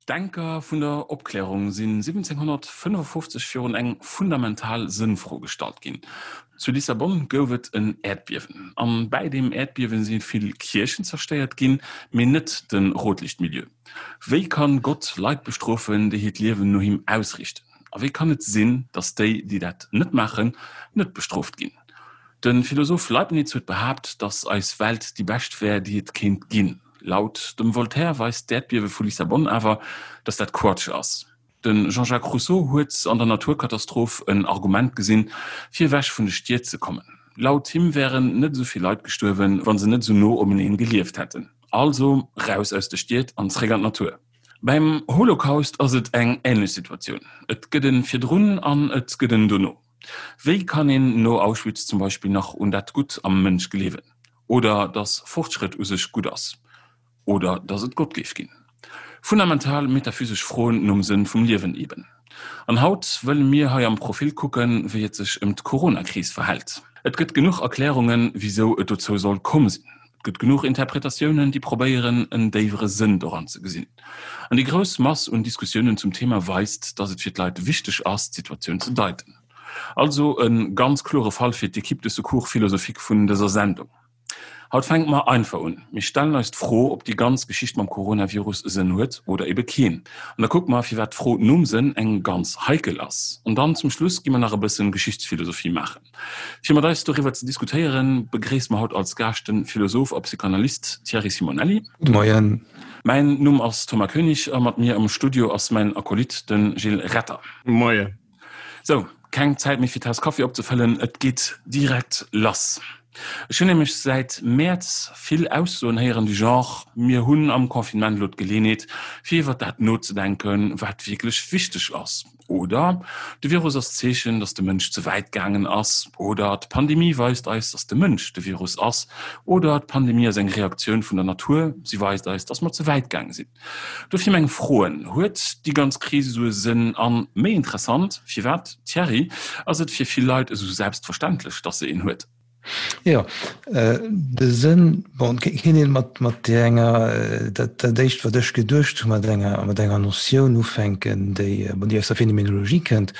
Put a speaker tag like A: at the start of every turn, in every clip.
A: D'Denker vun der Opklärung sinn 1755 virun eng fundamental Sënnfro gestallt ginn. Zu Lissabon gouf et en Äerdbiewen. An bäi deem Äerdbiewen si vill Kierchen zerstéiert ginn, mee net de Rotlichtmilieu. Wéi kann Gott Leit bestrofen, déi hiert Liewen no him ausriichten? A wéi kann et sinn, datt déi, déi dat net maachen, net bestrooft ginn? De Philosoph Leibniz huet behaapt, datt eis Welt déi bescht wär, déi et kéint ginn. Laut dem Voltaire weist d'Äerdbiewe vu Lissabon awer, datt dat Quatsch ass. De Jean-Jacques Rousseau huet an der Naturkatastroph en Argument gesinn, fir ewech vun de Stied ze kommen. Laut him wären net esou vill Leit gestuerwen, wa se net esou no omeneen gelieft hätten. Also raus aus de Stied an zréck an d'Natur. Beim Holocaust ass et eng änlech Situatioun, et gëtt e virdrun an et gëtt en dono. Wéi kann een no Auschwitz zum Beispill nach un dat Gutt am Mënsch gleewen? Oder dass Fortschrëtt u sech gutt ass? Oder dass et Gott géif ginn? Fundamental metaphysesch Froen nom Sënn vum Liewen eben. An haut wëlle mir hei am Profil kucken, wéi et sech ëm d'Corona-Kris verhält. Et gëtt genuch Erklärungen, wisou et dozou soll komm sinn. Et gëtt genuch Interpretatiounen, déi probéieren, en déiwere Sënn doran ze gesinn. An déi grouss Mass un Diskussiounen zum Thema weist, dass et fir d'Leit wichteg ass, d'Situatioun ze deiten. Also e ganz klore Fall fir d'Equipe de secours philosophique vun dëser Sendung. Haut fänke mer einfach un. Mir stellen eis d'Fro, ob déi ganz Geschicht mam Coronavirus e Sënn huet oder ebe keen. An da kucke mer, firwat d'Fro nom Sënn eng ganz heikel ass. An dann zum Schluss gi mer nach e bëssen Geschichtsphilosophie maachen. Fir mat eis doriwwer ze diskutéieren, begréisse mer haut als Gaascht de Philosoph a Psychanalyst Thierry Simonelli.
B: Gudde Moien.
A: Mäin Numm ass Thomas Koenig a mat mir am Studio ass mäin Acolyte, de Gilles Retter.
C: Moien.
A: Sou, keng Zäit méi fir d'Taass Kaffi opzefëllen, et geet direkt lass. Ech hunn nämlech säit Mäerz vill Aussoen héieren du Genre, mir hunn am Confinement elo d'Geleenheet, fir iwwer dat nozedenken, wat wierklech wichteg ass. Oder de Virus ass d'Zeechen, datt de Mënsch ze wäit gaangen ass. Oder d'Pandemie weist eis, datt de Mënsch de Virus ass. Oder d'Pandemie ass eng Reaktioun vun der Natur, si weist eis, datt mer ze wäit gaange sinn. Dofir meng Froen, Huet déi ganz Kris esou e Sënn? An, méi interessant, firwat, Thierry, ass et fir vill Leit esou selbstverständlech, datt se een huet?
B: Jo, de Sënn, bon, kéint een mat, mat enger, dat, dat éischt, wat ech geduecht hu, mat enger, mat enger Notioun ufänken, déi, bon, déi aus der Phänomenologie kënnt,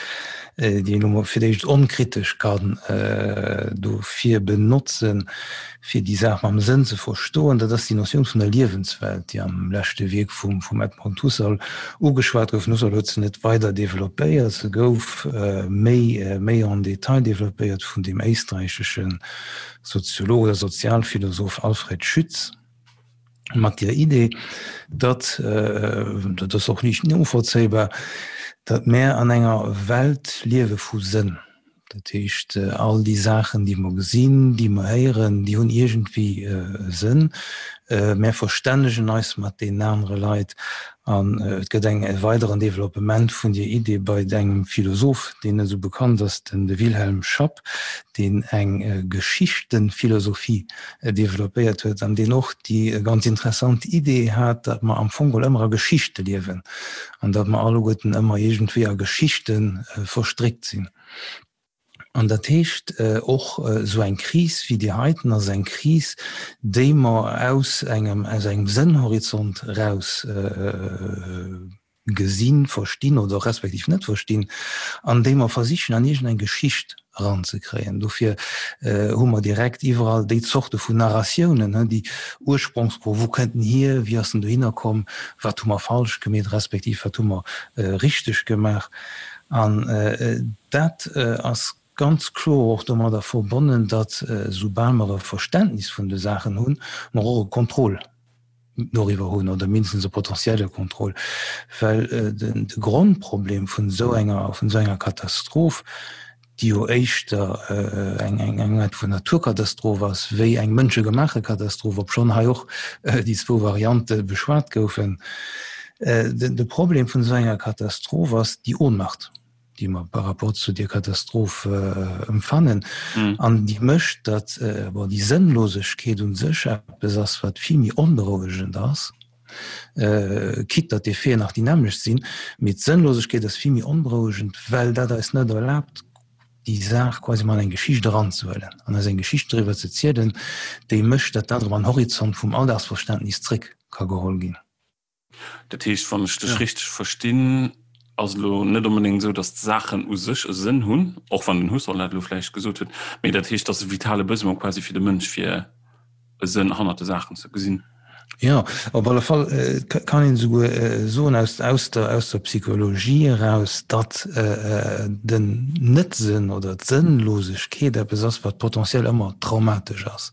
B: déi een elo mol fir d'éischt onkritesch kann dofir benotzen, fir déi Saach mam Sënn ze verstoen, dat ass déi Notioun vun der Liewenswelt, déi am leschte Wierk vum vum Edmund Husserl ugeschwat gouf. Den Husserl huet se net weider developpéiert, se gouf méi méi en détail developpéiert vun deem éisträichesche Soziolog oder Sozialphilosoph Alfred Schütz mat der Idee, datt, dat ass och liicht novollzéibar, datt mär an enger Welt liewe vu Sënn. Dat heescht, all déi Saachen, déi mer gesinn, déi mer héieren, déi hunn iergendwéi e Sënn. Mär verstännegen eis mat deenen anere Leit an et gëtt eng e weideren Developpement vun dier Idee bei engem Philosoph, deen net esou bekannt ass, den de Wilhelm Schapp, deen eng Geschichtenphilosophie developpéiert huet an deen och déi ganz interessant Idee hat, datt mer am Fong geholl ëmmer a Geschichte liewen an datt mer alleguerten ëmmer iergendwéi a Geschichte verstréckt sinn. An dat heescht, och esou eng Kris wéi déi heiten ass eng Kris, déi mer aus engem, aus engem Sënnhorizont eraus gesinn, verstinn oder respektiv net verstinn, an déi mer versichen an iergendeng Geschicht eranzekréien. Dofir hu mer direkt iwwerall déi Zorte vun Narratiounen, déi Ursprongsfro, wou kënnt en hier, wéi ass en dohinner komm, wat hu mer falsch gemeet, respektiv wat hu mer richteg gemaach. An dat ass ganz kloer och domadder verbonnen, datt soubal mer e Verständnis vun de Saachen hunn, mer och e Contrôle doriwwer hunn oder mindestens e potentielle Contrôle, well de Grondproblem vun esou enger, vun esou enger Katastroph, déi jo éischter eng eng Aart vun Naturkatastroph ass wéi eng mënschegemaache Katastroph, obschonn hei och déi zwou Variante beschwat goufen. De Problem vun esou enger Katastroph ass déi Ohnmacht, déi mer par rapport zu där Katastroph empfannen an déi mécht, datt, bon, déi Sënnlosegkeet u sech eppes ass, wat vill méi onberouegend ass, quitte datt d'Effeten nach déi nämmlecht sinn, mee d'Sënnlosegkeet ass vill méi onberouegend, well dat eis net erlaabt, déi Saach quasi mol an eng Geschicht eranzehuelen an eis eng Geschicht doriwwer ze zielen, déi mécht, datt dat erëm an Horizont vum Alldagsverständnis zréck ka geholl ginn.
A: Dat heescht, wann ech dech richteg verstinn, ass et elo net onbedéngt esou, datt d'Saachen u sech e Sënn hunn, och wann den Husserl dat elo vläicht gesot huet, mee dat heescht, datt e vitale Besoin quasi fir de Mënsch fir e Sënn hannert de Saachen ze gesinn.
B: Jo, op alle Fall kann een esouguer soen aus aus der aus der Psychologie eraus, datt den Net-Sënn oder d'Sënnlosegkeet eppes ass, wat potentiell ëmmer traumatesch ass.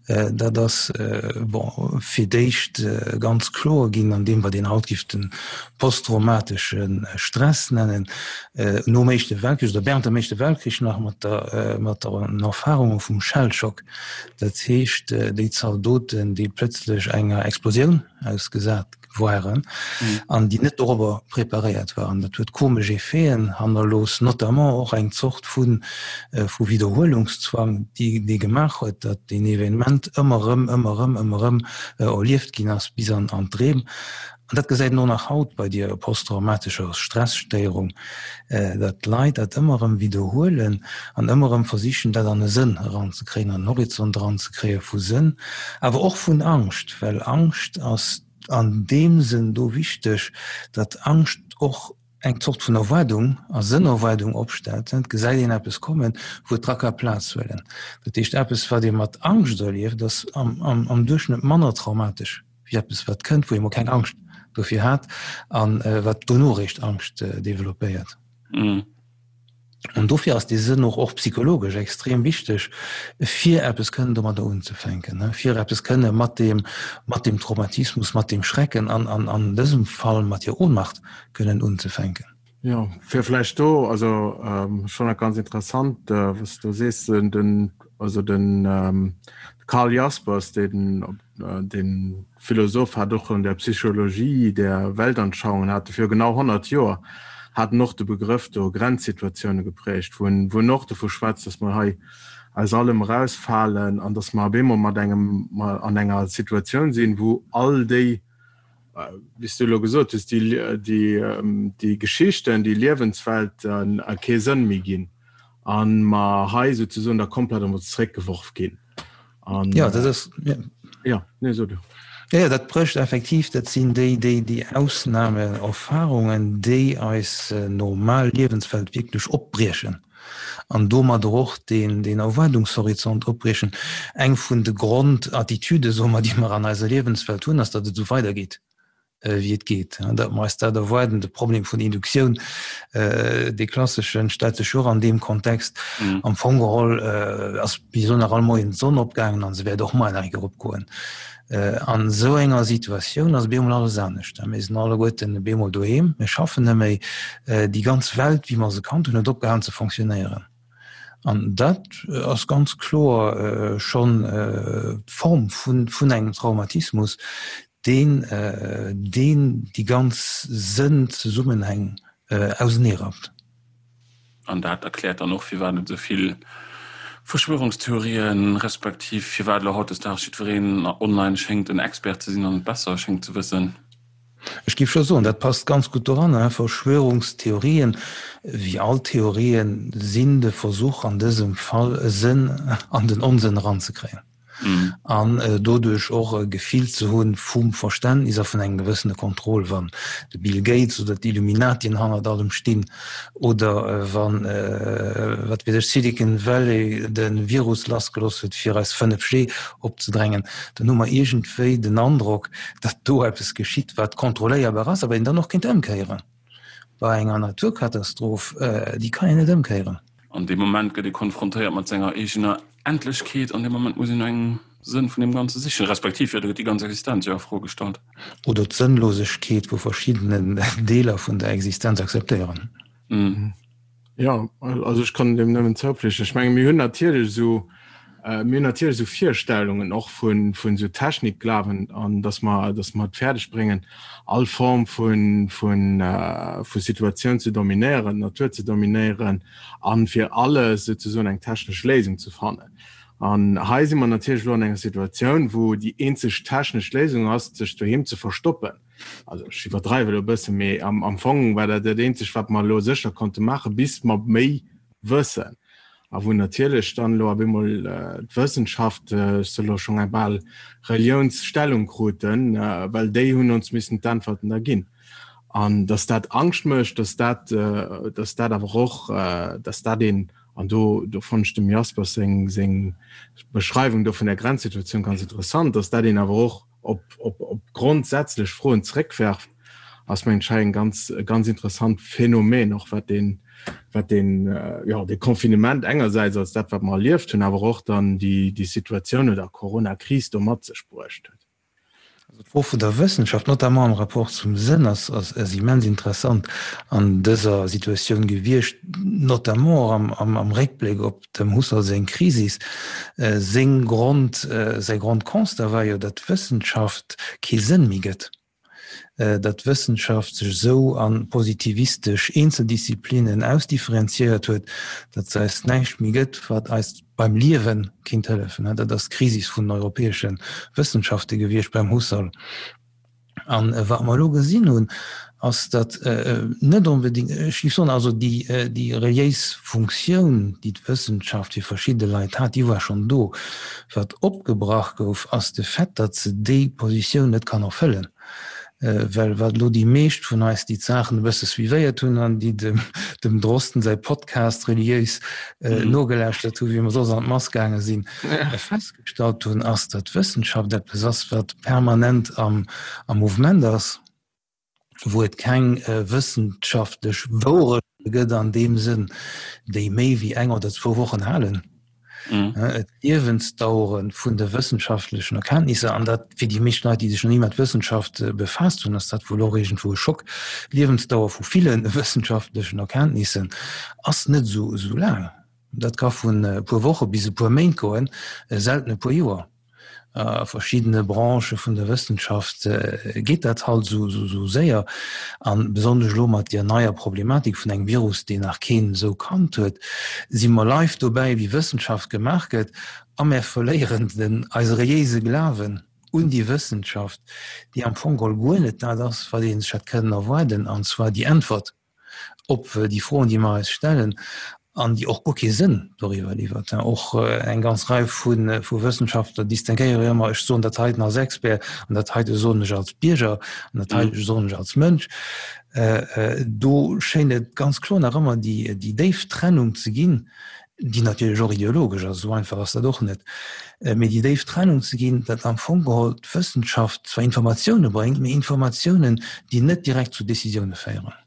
B: Dat ass bon fir d'éischt ganz kloer ginn an deem, wat een haut géif de posttraumatesche Stress nennen, nom Éischte Weltkrich oder während dem Éischte Weltkrich nach mat der mat den Erfarunge vum Shellshock. Dat heescht, déi Zaldoten, déi plëtzlech enger Explosioun ausgesat waren an déi net dorobber preparéiert waren. Dat huet komesch Effeten hannerlooss, notamment och eng Zort vu vu Widderhuelungszwang, déi dee gemaach huet, datt deen Evenement ëmmer erëm, ëmmer erëm, ëmmer erëm erlieft ginn ass bis an an d'Dreem. An dat gesäit een och nach haut bei dier posttraumatescher Stresstéierung, datt d'Leit dat ëmmer erëm widderhuelen an ëmmer erëm versichen, dat an e Sënn eranzekréien, an en Horizont eranzekréie vu Sënn, awer och vun Angscht, well Angscht ass an deem Sënn do wichteg, datt Angscht och eng Zort vun Erwaardung a Sënnerwaardung opstellt. Et gesäit een eppes kommen, wou et dra ka Plaz huelen. Dat heescht, eppes, wat ee mat Angscht erlieft, ass am Duerchschnëtt manner traumatesch wéi eppes wat kënnt, wou ee mol keng Angscht dofir hat an wat dono eréischt Angscht developpéiert. An dofir ass dee Sënn och och psychologesch extrem wichteg, fir eppes kënnen domadder unzefänken, fir eppes kënne mat deem, mat deem Traumatismus, mat deem Schrecken an an an dësem Fall mat hir Ohnmacht kënnen unzefänken.
C: Jo, fir vläicht do, also ech fannen dat ganz interessant, wat s du sees, den, also den Karl Jaspers, deen dee Philosoph hat och an der Psychologie der Weltanschauungen hat e viru genau 100 Joer hat en och de Begrëff do Grenzsituatioune geprägt, wou en wou en och dovu schwätzt, datt mer hei aus allem erausfalen an datt mer op eemol mat engem an enger Situatioun sinn, wou all déi wéi s du elo gesot hues, déi, déi, déi Geschichten, déi Liewenswelten kee Sënn méi ginn a mer hei souzesoen da komplett emol zeréckgeworf ginn.
B: An, ja, dat ass, ja.
C: Ja, nee, so du.
B: Ja, ja, dat brécht effektiv, dat sinn déi, déi, déi Ausnameerfahrungen, déi eis normal Liewenswelt wierklech opbriechen. An domadder och deen, deen Erwaardungshorizont opbriechen. Eng vun de Grondattitüde, soe mer, déi mer an eiser Liewenswelt hunn, ass, datt et esou weidergeet, wéi et geet. Datt mer eis dat erwaarden. De Problem vun Induktioun, dee klasseschen, stellt sech jo och an deem Kontext. Am Fong geholl ass bis elo nach all Moien d'Sonn opgaangen an se wäert och muer nach eng Kéier opgoen. An esou enger Situatioun ass op eemol alles anescht. Mir sinn alleguerten op eemol doheem, mir schaffen net méi. Déi ganz Welt, wéi mer se kannt hunn, huet opgehalen ze fonctionnéieren. An dat ass ganz kloer schonn d'Form vun engem Traumatismus, deen deen déi ganz Sënnzesummenhäng auseneerappt.
A: An dat erkläert dann och, firwat et esou vill Verschwörungstheorien, respektiv firwat elo hautdesdaags jiddwereen online schéngt en Expert ze sinn an et besser schéngt ze wëssen.
B: Ech géif scho soen, dat passt ganz gutt doranner. Verschwörungstheorien, wéi all Theorien, sinn de Versuch an dësem Fall e Sënn an den Onsënn eranzekréien. An doduerch och e Gefill ze hunn vum Verständnis a vun engem gewëssene Contrôle, wann de Bill Gates oder d'Illuminatien hannert allem stinn oder wann, wat weess ech, Silicon Valley de Virus lassgelooss huet fir eis 5G opzedrängen, dann hu mer iergendwéi den Androck, datt do eppes geschitt, wat kontrolléierbar ass, awer een dann och kéint ëmkéieren. Bei enger Naturkatastroph, déi kann een net ëmkéieren.
A: An deem Moment gëtt ee konfrontéiert mat senger eegener Endlechkeet an deem Moment muss een no engem Sënn vun deem Ganze sichen, respektiv jo, do gëtt déi ganz Existenz jo a Fro gestallt.
B: Oder d'Sënnlosegkeet vu verschiddenen Deeler vun der Existenz akzeptéieren.
C: Jo, also ech kann deem nëmmen zoupflichten. Ech menge mir hunn natierlech esou, mir hunn natierlech esou Virstellungen och vun, vun esou Technikglawen an datt mer, datt mer et fäerdeg bréngen, all Form vun, vun, vu Situatioun ze dominéieren, d'Natur ze dominéieren a fir alles souzesoen eng technesch Léisung ze fannen. An hei si mer natierlech elo an enger Situatioun, wou déi eenzeg technesch Léisung ass, sech doheem ze verstoppen. Also ech iwwerdreiwe elo e bëssen, mee am, am Fong war dat dat eenzegt, wat mer elo sécher konnte maachen, bis mer méi wëssen. A wou natierlech dann elo op eemol d'Wëssenschaft, ech soe elo schonn eng bal Reliounsstellung kruten, well déi hunn ons missen d'Äntwerten da ginn. An datt dat Angscht mécht, datt dat, datt dat awer och, datt dat een, an do, do fonnt ech dem Jaspers seng, seng Beschreiwung do vun der Grenzsituatioun ganz interessant, datt dat een awer och op, op, op grondsätzlech Froen zréckwerft, ass mengen ech hei en ganz, e ganz interessant Phänomen och, wat deen, wat deen, jo, dee Confinement engersäits als dat, wat mer erlieft hunn, awer och dann déi, déi Situatioun oder Coronakris do mat sech bruecht huet.
B: Also d'Fro vun der Wëssenschaft, notamment am Rapport zum Sënn, ass, ass, ass immens interessant an dëser Situatioun gewiescht, notamment och am, am, am Réckbléck op Dem Husserl seng Krisis, seng Grond, säi Grondconstat war jo, datt d'Wëssenschaft kee Sënn méi gëtt, datt d'Wëssenschaft sech esou a positivistesch Eenzeldisziplinnen ausdifferenziéiert huet, datt se eis näischt méi gëtt, wat eis beim Liewe kinnt hëllefen. Dat ass d'Krisis vun den europäesche Wëssenschafte gewiescht beim Husserl. An wat mer elo gesinn hunn, ass, datt net onbedéngt, ech géif soen, also déi, déi reliéis Funktioun, déi d'Wëssenschaft fir verschidde Leit hat, déi war schonn do. Wat opgebrach gouf, ass de Fait, datt se déi Positioun net kann erfëllen. Well wat elo déi meescht vun eis, déi d'Saachen e bësse suivéiert hunn an déi dem, dem Drosten säi Podcast reliéis nogelauschtert hunn, wéi mer soss an d'Mass gaange sinn, festgestallt hunn, ass, datt Wëssenschaft eppes ass, wat permanent am Mouvement ass, wou et keng wëssenschaftlech Wourechte gëtt an deem Sënn, déi méi wéi eng oder zwou Wochen halen. D'Liewensdauere vun de wëssenschaftlechen Erkenntnisser, an dat fir déi meescht Leit, déi sech nach ni mat Wëssenschaft befaasst hunn, ass dat wuel och iergendwou e Schock, d'Liewensdauer vu ville wëssenschaftlechen Erkenntnissen ass net esou laang. Dat ka vun e puer Woche bis e puer Méint goen, selten e puer Joer. A verschiddene Branchë vun der Wëssenschaft geet dat halt esou séier. A besonnesch elo mat deer neier Problematik vun engem Virus, deen nach keen esou kannt huet, si mer live dobäi, wéi Wëssenschaft gemaach gëtt, a mär verléieren den eise reliéise Glawen un déi Wëssenschaft, déi am Fong geholl guer net dat ass, wat ee sech hätt kënnen erwaarden, an zwar déi Äntwert. op déi Froen, déi mer eis stellen an déi och guer kee Sënn doriwwer liwwert. Och eng ganz Rei vu Wëssenschaftler distinguéiere jo ëmmer, ech soen dat heiten als Expert an dat heite soen ech als Bierger an dat heite soen ech als Mënsch. Do schéint et ganz kloer nach ëmmer déi déif Trennung ze ginn, déi natierlech och ideologesch ass, esou einfach ass dat och net, mee déi déif Trennung ze ginn, datt am Fong geholl d'Wëssenschaft zwar Informatioune bréngt, mee Informatiounen, déi net direkt zu Decisioune féieren.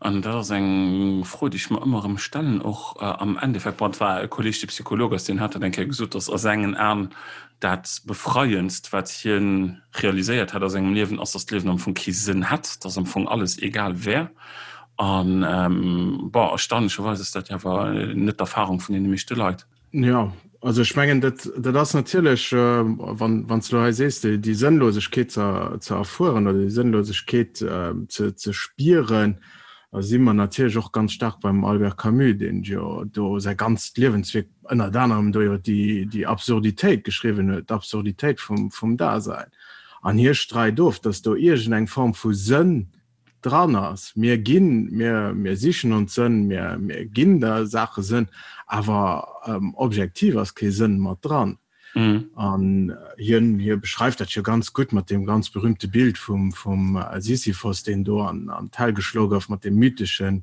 A: An dat ass eng Fro, déi ech mer ëmmer erëm stellen, och am Endeffekt, bon, et war e Kolleeg, dee Psycholog ass, deen hat dat eng Kéier gesot, datt a sengen Aen dat Befreiendst, wat hie realiséiert hätt a sengem Liewen, ass, datt d'Liewen am Fong kee Sënn hätt, datt am Fong alles egal wär. An bon, erstaunlecherweis ass dat jo awer net d'Erfahrung vun deene meeschte Leit.
C: Jo, also ech mengen, dat, dat ass natierlech, wann, wann s de elo hei sees, déi, déi Sënnlosegkeet ze, ze erfueren oder déi Sënnlosegkeet ze, ze spieren, da si mer natierlech och ganz staark beim Albert Camus, deen jo do säi ganzt Liewenswierk ënnert anerem do iwwer déi, déi Absurditéit geschriwwen huet, d'Absurditéit vum, vum Dasein. An hie streit of, datt do iergendeng Form vu Sënn dran ass. Mir ginn, mir, mir sichen ons Sënn, mir, mir ginn der Saache Sënn, awer objektiv ass kee Sënn mat dran. An hien, hie beschreift dat jo ganz gutt mat deem ganz berühmte Bild vum, vum Sisyphos, deen do an, an d'Hell geschloe gouf, mat deem mytheschen,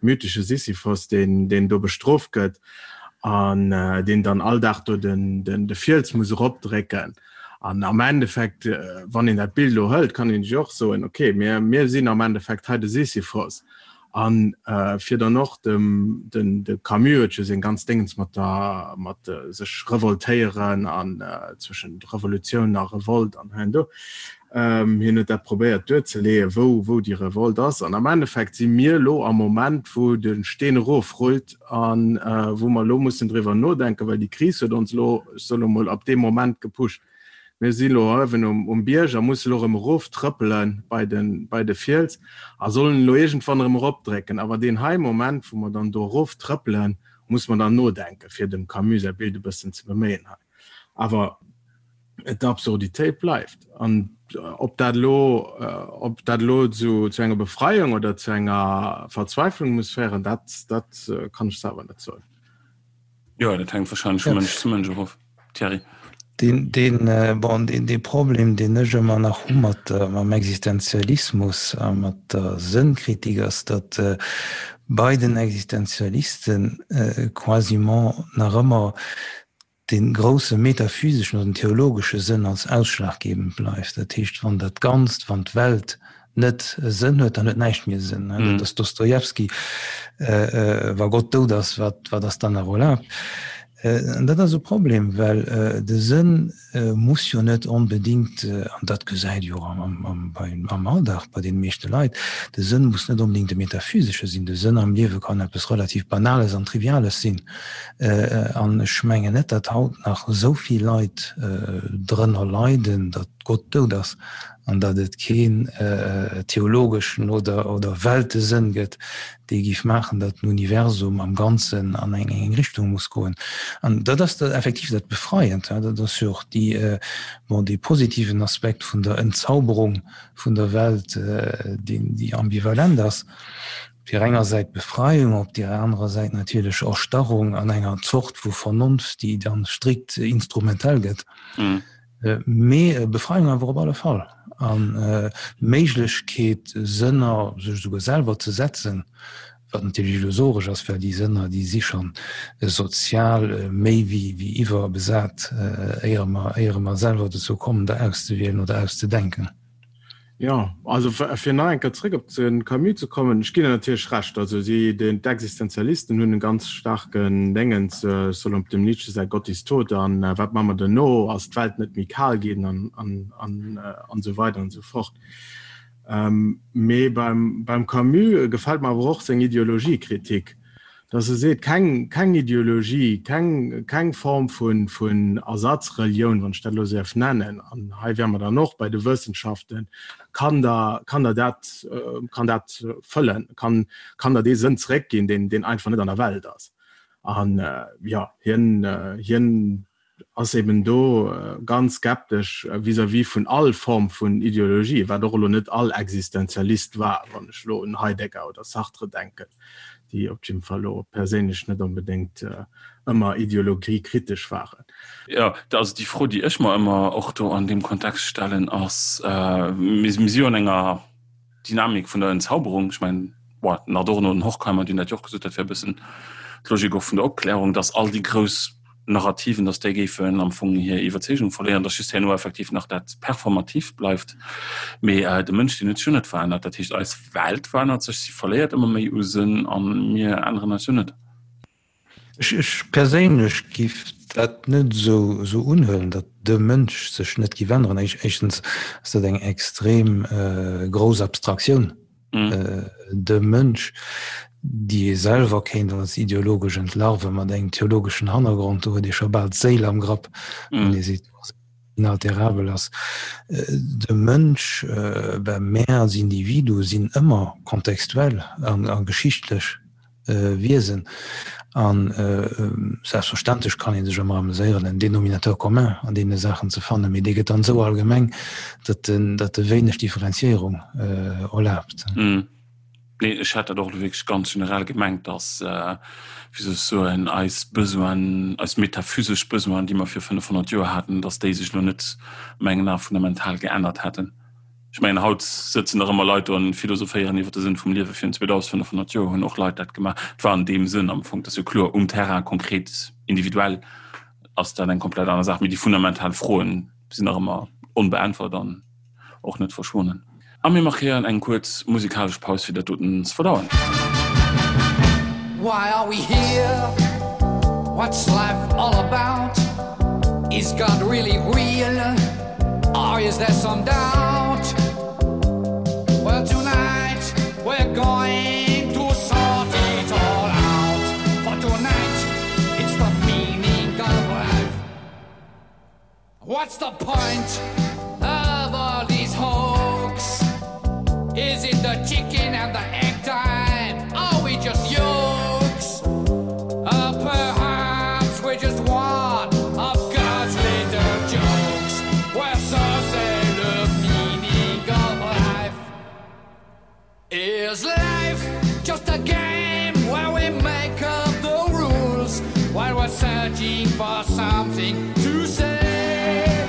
C: mythesche Sisyphos, deen, deen do bestrooft gëtt an deen dann all Dag do den, den, de Fiels muss eropdrécken. An am Endeffekt, wann een dat Bild elo hëlt, kann een sech och soen, okay, mir, mir sinn am Endeffekt hei de Sisyphos. An fir dann och dem, den, de Camus huet jo seng ganz Déngens mat der, mat sech revoltéieren an zwëschent Revolutioun a Revolt an hei an do. Hien huet dat probéiert duerzeleeën, wou, wou déi Revolt ass. An am Endeffekt si mir elo am Moment, wou de Steen erofrullt a wou mer elo mussen driwwer nodenken, well déi Kris huet ons elo, ech soen elo mol, ab deem Moment gepusht. Mir si elo uewen um Bierg a musse elo erëm eroftrëppele bei de, bei de Fiels a sollen elo iergendwann erëm eropdrécken. Awer deen hei Moment, wou mer dann do eroftrëppelen, muss mer dann nodenken, fir dem Camus säi Bild e bëssen ze beméien hei. Awer d'Absurditéit bleift. An ob dat elo, ob dat elo zu, zu enger Befreiung oder zu enger Verzweiflung muss féieren, dat, dat kann ech selwer net soen.
A: Jo, dat hänkt wahrscheinlech vu Mënsch zu Mënsch och of. Thierry.
B: Deen, deen, bon, deen, dee Problem, deen ech ëmmer nach hu mat, mam Existenzialismus a mat der Sënnkritik, ass, datt bei den Existenzialisten quasiment nach ëmmer dee grousse metaphyseschen oder den theologesche Sënn als ausschlaggebend bleift. Dat heescht, wann dat Ganzt, wann d'Welt net e Sënn huet, dann huet näischt méi e Sënn. Dat ass Dostojewski, Wa Gott dout ass, wat, wat ass dann nach erlaabt? An dat ass e Problem, well de Sënn muss jo net onbedéngt, an dat gesäit jo am Alldag bei deene meeschte Leit, de Sënn muss net onbedéngt e metaphysesche sinn. De Sënn am Liewe kann eppes relativ Banales an Triviales sinn. An ech mengen net, datt haut nach esou vill Leit drënner leiden, datt Gott dout ass an datt et keen theologeschen oder oder Weltesënn gëtt, dee géif maachen, datt den Universum am Ganzen an eng eng Richtung muss goen. An dat ass dat effektiv dat Befreiend, dat ass jo och déi, bon, dee positiven Aspekt vun der Entzauberung vun der Welt, deen, déi ambivalent ass. Op deer enger Säit Befreiung, op deer anerer Säit natierlech Erstarrung an enger Zort vu Vernonft, déi dann strikt instrumentell gëtt. Mee Befreiung awer op alle Fall an d'Méiglechkeet, Sënner sech esouguer selwer ze setzen, wat natierlech illusoresch ass, well déi Sënner, déi si schonn sozial méi wéi iwwerbesat, éiere mer, éiere mer selwer dozou kommen, der auszewielen oder auszedenken.
C: Jo, also fir nach eng Kéier zréck op de Camus ze kommen, ech ginn der natierlech Recht. Also si, den, d'Existenzialisten hunn e ganz staarken Déngens, ech soll op dem Nietzsche säi Gott ist tot an wat maache mer duerno, ass d'Welt net méi kal ginn an, an, an, an esou weider an esou fort. Mee beim, beim Camus gefält mer awer och seng Ideologiekritik. Dass e seet, keng, keng Ideologie, keng, keng Form vun, vun Ersatzrelioun, wann ech dat elo esou däerf nennen, an hei wäre mer dann och bei de Wëssenschaften, kann der, kann der dat, kann dat fëllen, kann, kann der dee Sënn zeréckginn, deen, deen einfach net an der Welt ass. An, jo, hien, hien ass eben do ganz skeptesch vis-à-vis vun all Form vun Ideologie, wat och elo net all Existenzialist war, wann ech elo un Heidegger oder Sartre denken, déi op jidde Fall elo perséinlech net onbedéngt ëmmer ideologiekritesch waren.
A: Jo, also déi Fro, déi ech mer ëmmer och do an deem Kontext stellen, ass, mir si jo an enger Dynamik vun der Entzauberung, ech mengen, bon, den Adorno an den Horkheimer, déi hunn dat jo och gesot, dat wär e bëssen d'Logik och vun der Opklärung, datt all déi grouss Narrativen, datt déi géifen am Fong hir Iwwerzeegung verléieren, datt just herno effektiv nach dat Performativt bleift. Mee de Mënsch, deen huet sech jo net verännert. Dat heescht, eis Welt verännert sech, si verléiert ëmmer méi u Sënn a mir änneren eis jo net.
B: Ech perséinlech giff dat net esou unhuelen, datt de Mënsch sech net giff änneren. Éischtens ass dat eng extrem grouss Abstraktioun, de Mënsch, déi ee selwer kéint als ideologesch entlarven, mat engem theologeschen Hannergrond. Do huet ee scho bal d'Séil am Grapp, wann ee seet, inalterabel ass. De Mënsch, ben mär als Individu sinn ëmmer kontextuell a geschichtlech Wiesen. A selbstverständlech kann ee sech ëmmer ameséieren, en Dénominateur commun an deene Saachen ze fannen, mee dee gëtt dann esou allgemeng, datt en, datt e wéineg Differenzierung erlaabt.
A: Nee, ech hat dat och elo wierklech ganz generell gemengt, datt, wéi soll ech soen, eis Besoinen, eis metaphysesch Besoinen, déi mer vir 500 Joer haten, datt déi sech elo net a mengen Ae fundamental geännert hätten. Ech mengen, haut sëtzen nach ëmmer Leit do an philosophéieren iwwer de Sënn vum Liewe. Virun 2500 Joer hunn och Leit dat gemaach. Et war an deem Sënn am Fong, dat ass jo kloer, um Terrain konkret, individuell ass dat eng komplett aner Saach, mee déi fundamental Froen sinn nach ëmmer onbeäntwert an och net verschwonnen. A mir markéieren eng kuerz musikalesch Paus, fir dat doten ze verdauen. Why are we here? What's life all about? Is God really real? Or is there some doubt? Well tonight we're going to sort it all out For tonight it's the meaning of life What's the point of all these hoax? Is it the chicken and the egg time? Are we just yokes? Uh, perhaps we're just one of God's little jokes Well, so say the meaning of life Is life just a game where we make up the rules While we're. searching for something to say.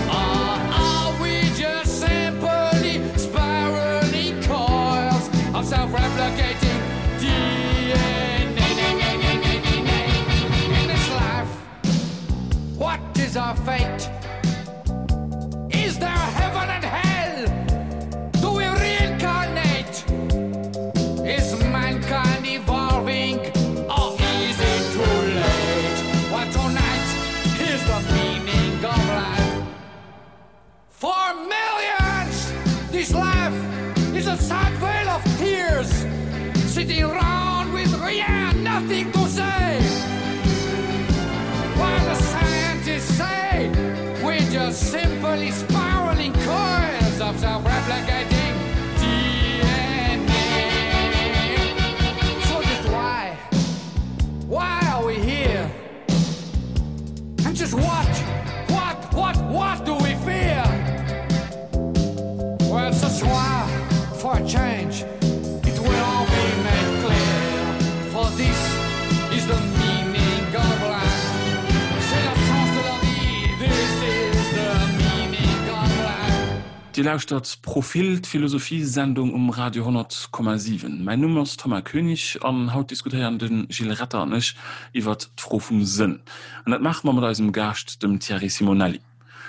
A: Or are we just simply spiraling coils of self-replicating DNA? In this life, what is our fate? Is there heaven and hell? Do we reincarnate? Is mankind evolving or is it too late? Well, tonight, here's the meaning of life. For millions, this life is a sad veil of tears, sitting round with yeah, nothing to say. While the scientists say we're just simply spiraling coils of self-replicating DNA. So just why? Why are we here? And just what, what, what, what do we fear? Well, ce soir, for a change, it will all be made clear. For this is the meaning of life. C'est le sens de la vie. This is the meaning of life. Dir lauschtert Profil, d'Philosophie-Sendung um Radio 100,7. Mäin Numm ass Thomas Koenig an haut diskutéieren de Gilles Retter an ech iwwert d'Fro vum Sënn. An dat maache mer mat eisem Gaascht, dem Thierry Simonelli.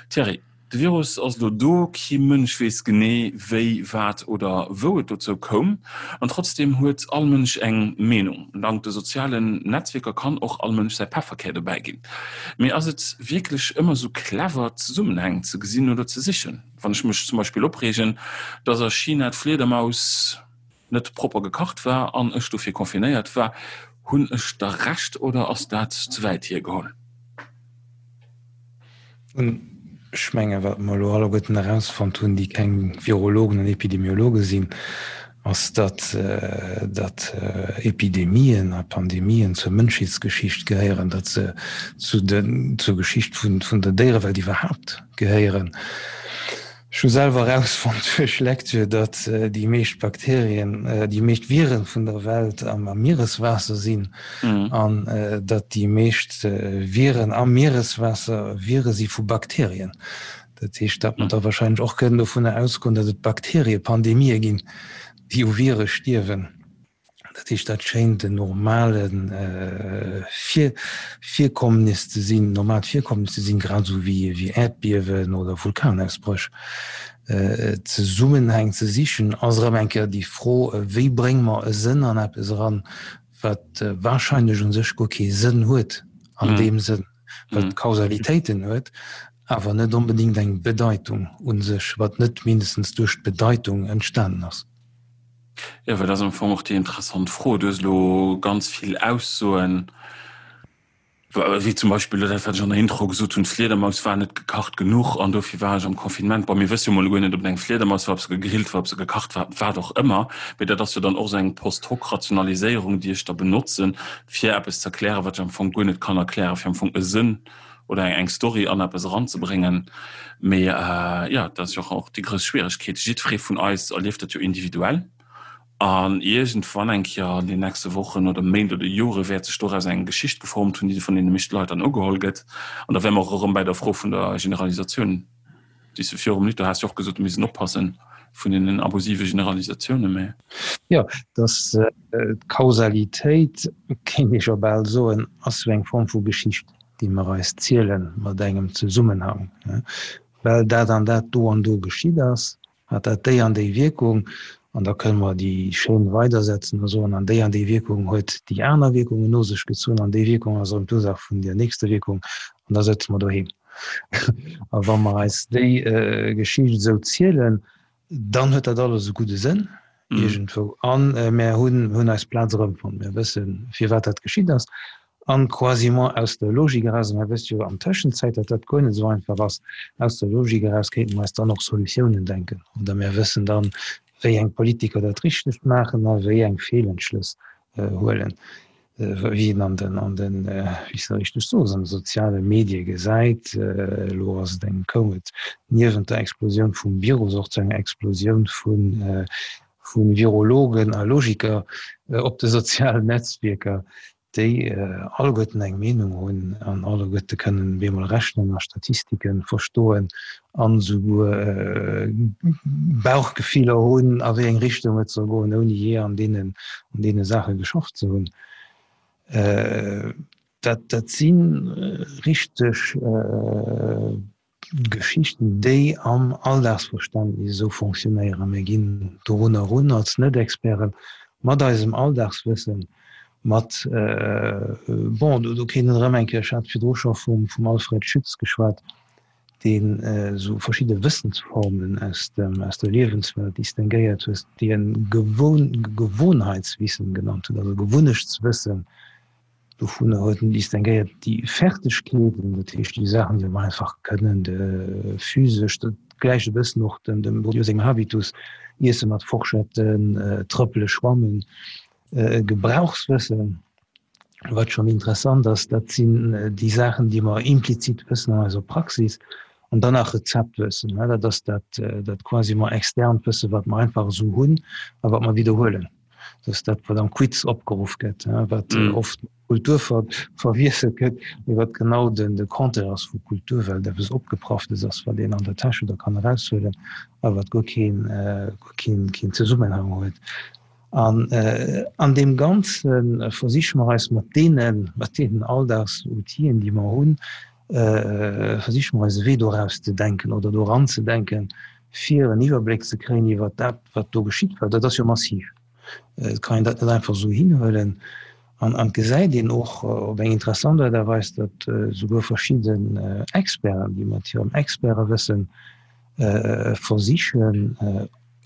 A: Thierry, de Virus ass elo do, kee Mënsch weess genee wéi, wat oder wou et dozou koum. An trotzdeem huet all Mënsch eng Meenung. Dank de sozialen Netzwierker kann och all Mënsch säi Pefferkär dobäi ginn. Mee ass et wierklech ëmmer esou clever, Zesummenhäng ze gesinn oder ze sichen? Wann ech mech zum Beispill opreegen, dass a China d'Fliedermaus net propper gekacht war an ech dofir confinéiert war, hunn ech da Recht oder ass dat ze wäit hiergeholl?
B: Ech menge wat mer elo alleguerten erausfonnt hunn, déi keng Virologen an Epidemiologe sinn, ass, datt datt Epidemien a Pandemien zur Mënschheetsgeschicht gehéieren, datt se zu den zur Geschicht vun vun der Déierewelt iwwerhaapt gehéieren. Ech hu selwer erausfonnt duerch Lecture, datt déi meescht Bakterien, déi meescht Viren vun der Welt am Miereswaasser sinn an datt déi meescht Viren am Miereswaasser Vire si vu Bakterien. Dat heescht, datt mer da wahrscheinlech och kënnen dovunner ausgoen, datt et Bakteriepandemië ginn, déi u Vire stierwen. Dat heescht, dat schéint en normale Virkommnis ze sinn, normaalt Virkommnis ze sinn, grad esou wéi Äerdbiewen oder Vulkanausbréch. Zesummenhäng ze sichen, ass erëm eng Kéier déi Fro, wéi brénge mer e Sënn an eppes eran, wat wahrscheinlech u sech guer kee Sënn huet an deem Sënn, wat Kausalitéiten huet, awer net onbedéngt eng Bedeitung u sech, wat net mindestens duerch d'Bedeitung entstanen ass.
A: Jo, well dat ass am Fong och déi interessant Fro. Du hues elo ganz vill Aussoen, wéi zum Beispill elo dat, wat ech an der Intro gesot hunn, d'Fliedermaus war net gekacht genuch an dofir war ech am Confinement. Bon, mir wësse jo mol guer net, ob et eng Fliedermaus war, ob se gegrillt war, ob se gekacht war, wat och ëmmer. Mee dat ass jo dann och esou eng Post-hoc-Rationaliséierung, déi ech da benotzen, fir eppes ze erklären, wat ech am Fong guer net kann erklären, fir am Fong e Sënn oder eng Story an eppes eranzebréngen. Mee jo, dat ass jo och déi grouss Schwieregkeet. Jiddweree vun eis erlieft dat jo individuell. An iergendwann eng Kéier an den nächste Wochen oder Méint oder Jore wäert sech doraus eng Geschicht geformt hunn, déi vun deene meeschte Leit dann ugeholl gëtt. An da wäre mer och erëm bäi der Fro vun der Generalisatioun, déi s de virum Ludo has jo och gesot, mir missten oppassen vun deenen abusive Generalisatiounen. Mee.
B: Jo, dass d'Kausalitéit, kéint ee scho bal soen, ass sou eng Form vu Geschicht. déi mer eis ziele mat engem Zesummenhang, well dat an dat do an do geschitt ass, hat dat déi an déi Wierkung, an da kënne mer déi Chaîne weidersetzen a soen, an déi an déi Wierkung huet déi aner Wierkungen no sech gezunn, an déi Wierkung ass erëm d'Ursaach vun där nächster Wierkung, an da sëtze mer doheem. A wa mer eis déi Geschicht esou zielen, Dann huet dat alles e gudde Sënn iergendwou an mär hunn hunn eis Plaz erëmfonnt. Mir wëssen, firwat dat geschitt ass an quasiment aus der Logik eraus, a mär wësse jo an Tëschenzäit, datt dat guer net esou einfach ass, aus der Logik eraus kéinte mer eis dann och Solutiounen denken oder mär wëssen dann, wéi eng Politiker dat Richtegt maachen a wéi eng Feelentschlëss huelen. Wéi een an den, an den, wéi s de richteg soos, an de soziale Medie gesäit, elo ass et eng, koum et niewent der Explosioun vum Virus och zu enger Explosioun vu vu Virologen a Logiker op de sozialen Netzwierker. déi alleguerten eng Meenung hunn an alleguerte kënnen bemol rechnen a Statistike verstoen an esouguer Bauchgefiller hunn, a wéi eng Richtung et soll goen, ouni jee an deenen, an deene Saache geschafft ze hunn. Dat, dat si richteg Geschichten, déi am Alldagsverständnis esou fonctionnéieren. Mir ginn dorunner erun als Net-Experten mat eisem Alldagswëssen, mat, bon, do kéint een erëm eng Kéier, ech hat virdru scho vum Alfred Schütz geschwat, deen esou verschidde Wëssensformen aus dem, aus der Liewenswelt distinguéiert huet, déi en Gewohnheitswissen genannt huet, also Gewunnechtswëssen, Dovunner huet en distinguéiert déi Fertegkeeten, dat heescht déi Saachen, déi mer einfach kënnen, de physesch, dat gläicht e bëssen och dem dem Bourdieu sengem Habitus, Iesse mat Forschetten, trëppele, schwammen, Gebrauchswëssen. Wat schonn interessant ass, dat sinn déi Saachen, déi mer implizit wëssen an eiser Praxis. An dann nach Rezeptwëssen, dat ass dat dat quasiment externt Wëssen, wat mer einfach esou hunn a wat mer widderhuelen. Dat ass dat, wat am Quiz opgeruff gëtt, wat mm. oft Kultur ver verwiesselt gëtt, mee wat genau den de Contraire ass vu Kultur, well dat eppes Opgeprafftes ass, wat een an der Täsch oder kann eraushuelen, a wat guer keen, äh, guer keen, keen Zesummenhang huet. An äh, an deem Ganze äh, versiche mer eis mat deenen, mat deenen Alldagsoutien, déi mer hunn, äh, versiche mer eis e Wee doraus ze denken oder doran ze denken, fir en Iwwerbléck ze kréien iwwer dat, wat do geschitt, well dat ass jo massiv. Et kann een dat net einfach esou hinhuelen. An et gesäit een och op eng interessant Aart a Weis, datt esouguer verschidden Experten, déi mat hirem Expertewëssen versichen,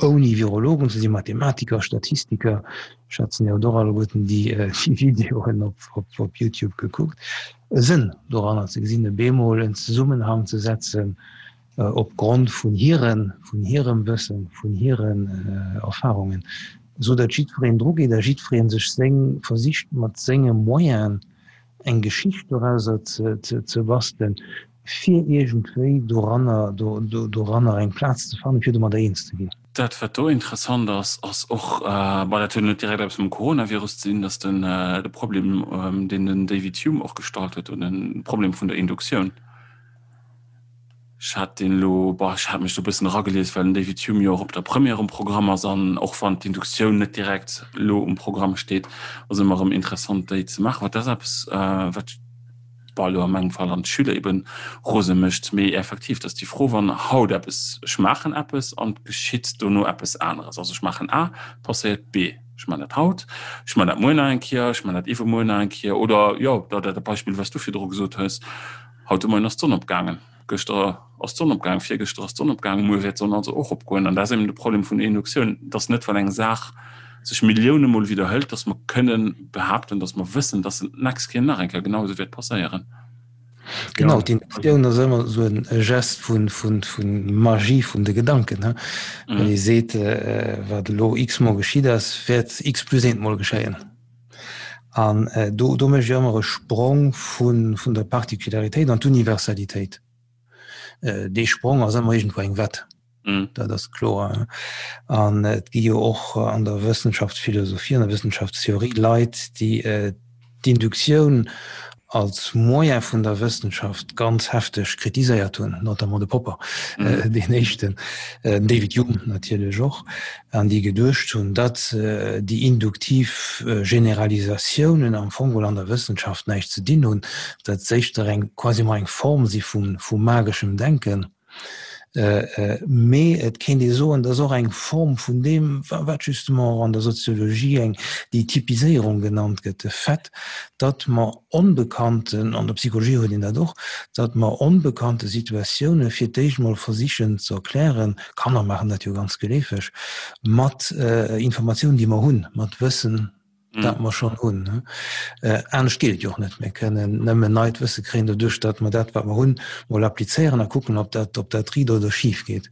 B: ouni Virologen ze sinn, Mathematiker, Statistiker, ech schätzen, Dir hutt och alleguerten déi Videoen op YouTube gekuckt, e Sënn doranner ze gesinn, e bemol en Zesummenhang ze setzen op Grond vun hiren, vun hirem Wëssen, vun hiren Erfahrungen, esou datt jiddwereen drugeet a jiddweree sech seng, versicht mat senge Moyenen eng Geschicht dorauser ze bastelen, fir iergendwéi doranner, doranner eng Plaz ze fannen, fir domadder eens ze ginn.
A: Dat, wat do interessant ass, ass och, bon, dat huet net direkt eppes mam Coronavirus ze dinn, datt den, de Problem, deen den David Hume och gestallt huet, oder den Problem vun der Induktioun, Ech hat deen elo, boah, ech hat mech do e bëssen eragelies, well den David Hume jo och op der Première um Programm ass an och wann d'Induktioun net direkt elo um Programm steet, ass ëmmer erëm interessant déi ze maachen. Wat ass eppes, wat, boah, elo a mengem Fall an d'Schüler eben rose mécht. Mee effektiv, dat ass déi Fro, wann haut eppes, ech maachen eppes an et geschitt dono eppes aneres, also ech maachen A, passéiert B. Ech man dat haut, ech man dat muer nach eng Kéier, ech man dat iwwermuer nach eng Kéier oder jo, dat Beispill, wat s du virdru gesot hues, Haut de Moien ass d'Sonn opgaangen, gëschter ass d'Sonn opgaangen, virgëschter ass d'Sonn opgaangen, muer wäert d'Sonn also och opgoen. An dat ass eben de Problem vun der Induktioun, dass net, wann eng Saach sech Millioune Mol widderhëlt, dass mer kënnen behaapten, dass mer wëssen, dass se d'nächst Kéier nach eng Kéier genau esou wäert passéieren.
B: Genau, d'Induktioun ass ëmmer esou e Gest vu Magie vun de Gedanken, wann ee seet, wat elo x-mol geschitt ass, wäert x plus eent mol geschéien. An do, do mécht ech ëmmer e Sprong vun, vun der Particularitéit an d'Universalitéit. Dee Sprong ass ëmmer iergendwou eng Wett. Dat ass kloer. An et gi jo och an der Wëssenschaftsphilosophie, an der Wëssenschaftstheorie Leit, déi d'Induktioun als Moyen vun der Wëssenschaft ganz hefteg kritiséiert hunn, notamment de Popper, deen éischten, den David Hume natierlech och, an déi geduecht hunn, datt déi induktiv Generalisatiounen am Fong geholl an der Wëssenschaft näischt ze dinn hunn, datt se éischter eng quasiment eng Form si vu mageschem Denken. Mee et kéint ee soen, dat ass och eng Form vun deem, wat justement och an der Soziologie eng déi Typiséierung genannt gëtt, de Fait, datt mer onbekannten, an der Psychologie huet een dat och, datt mer onbekannte Situatioune fir d'éischt mol versichen ze erklären, Kanner maachen dat jo ganz geleefeg, mat Informatiounen, déi mer hunn, mat Wëssen, dat mer schonn hunn. Anescht geet et jo och net. Mir kënnen nëmmen neit Wësse kréien doduerch, datt mer dat, wat mer hunn, mol applizéieren a kucken, ob dat, ob dat riit oder schif geet.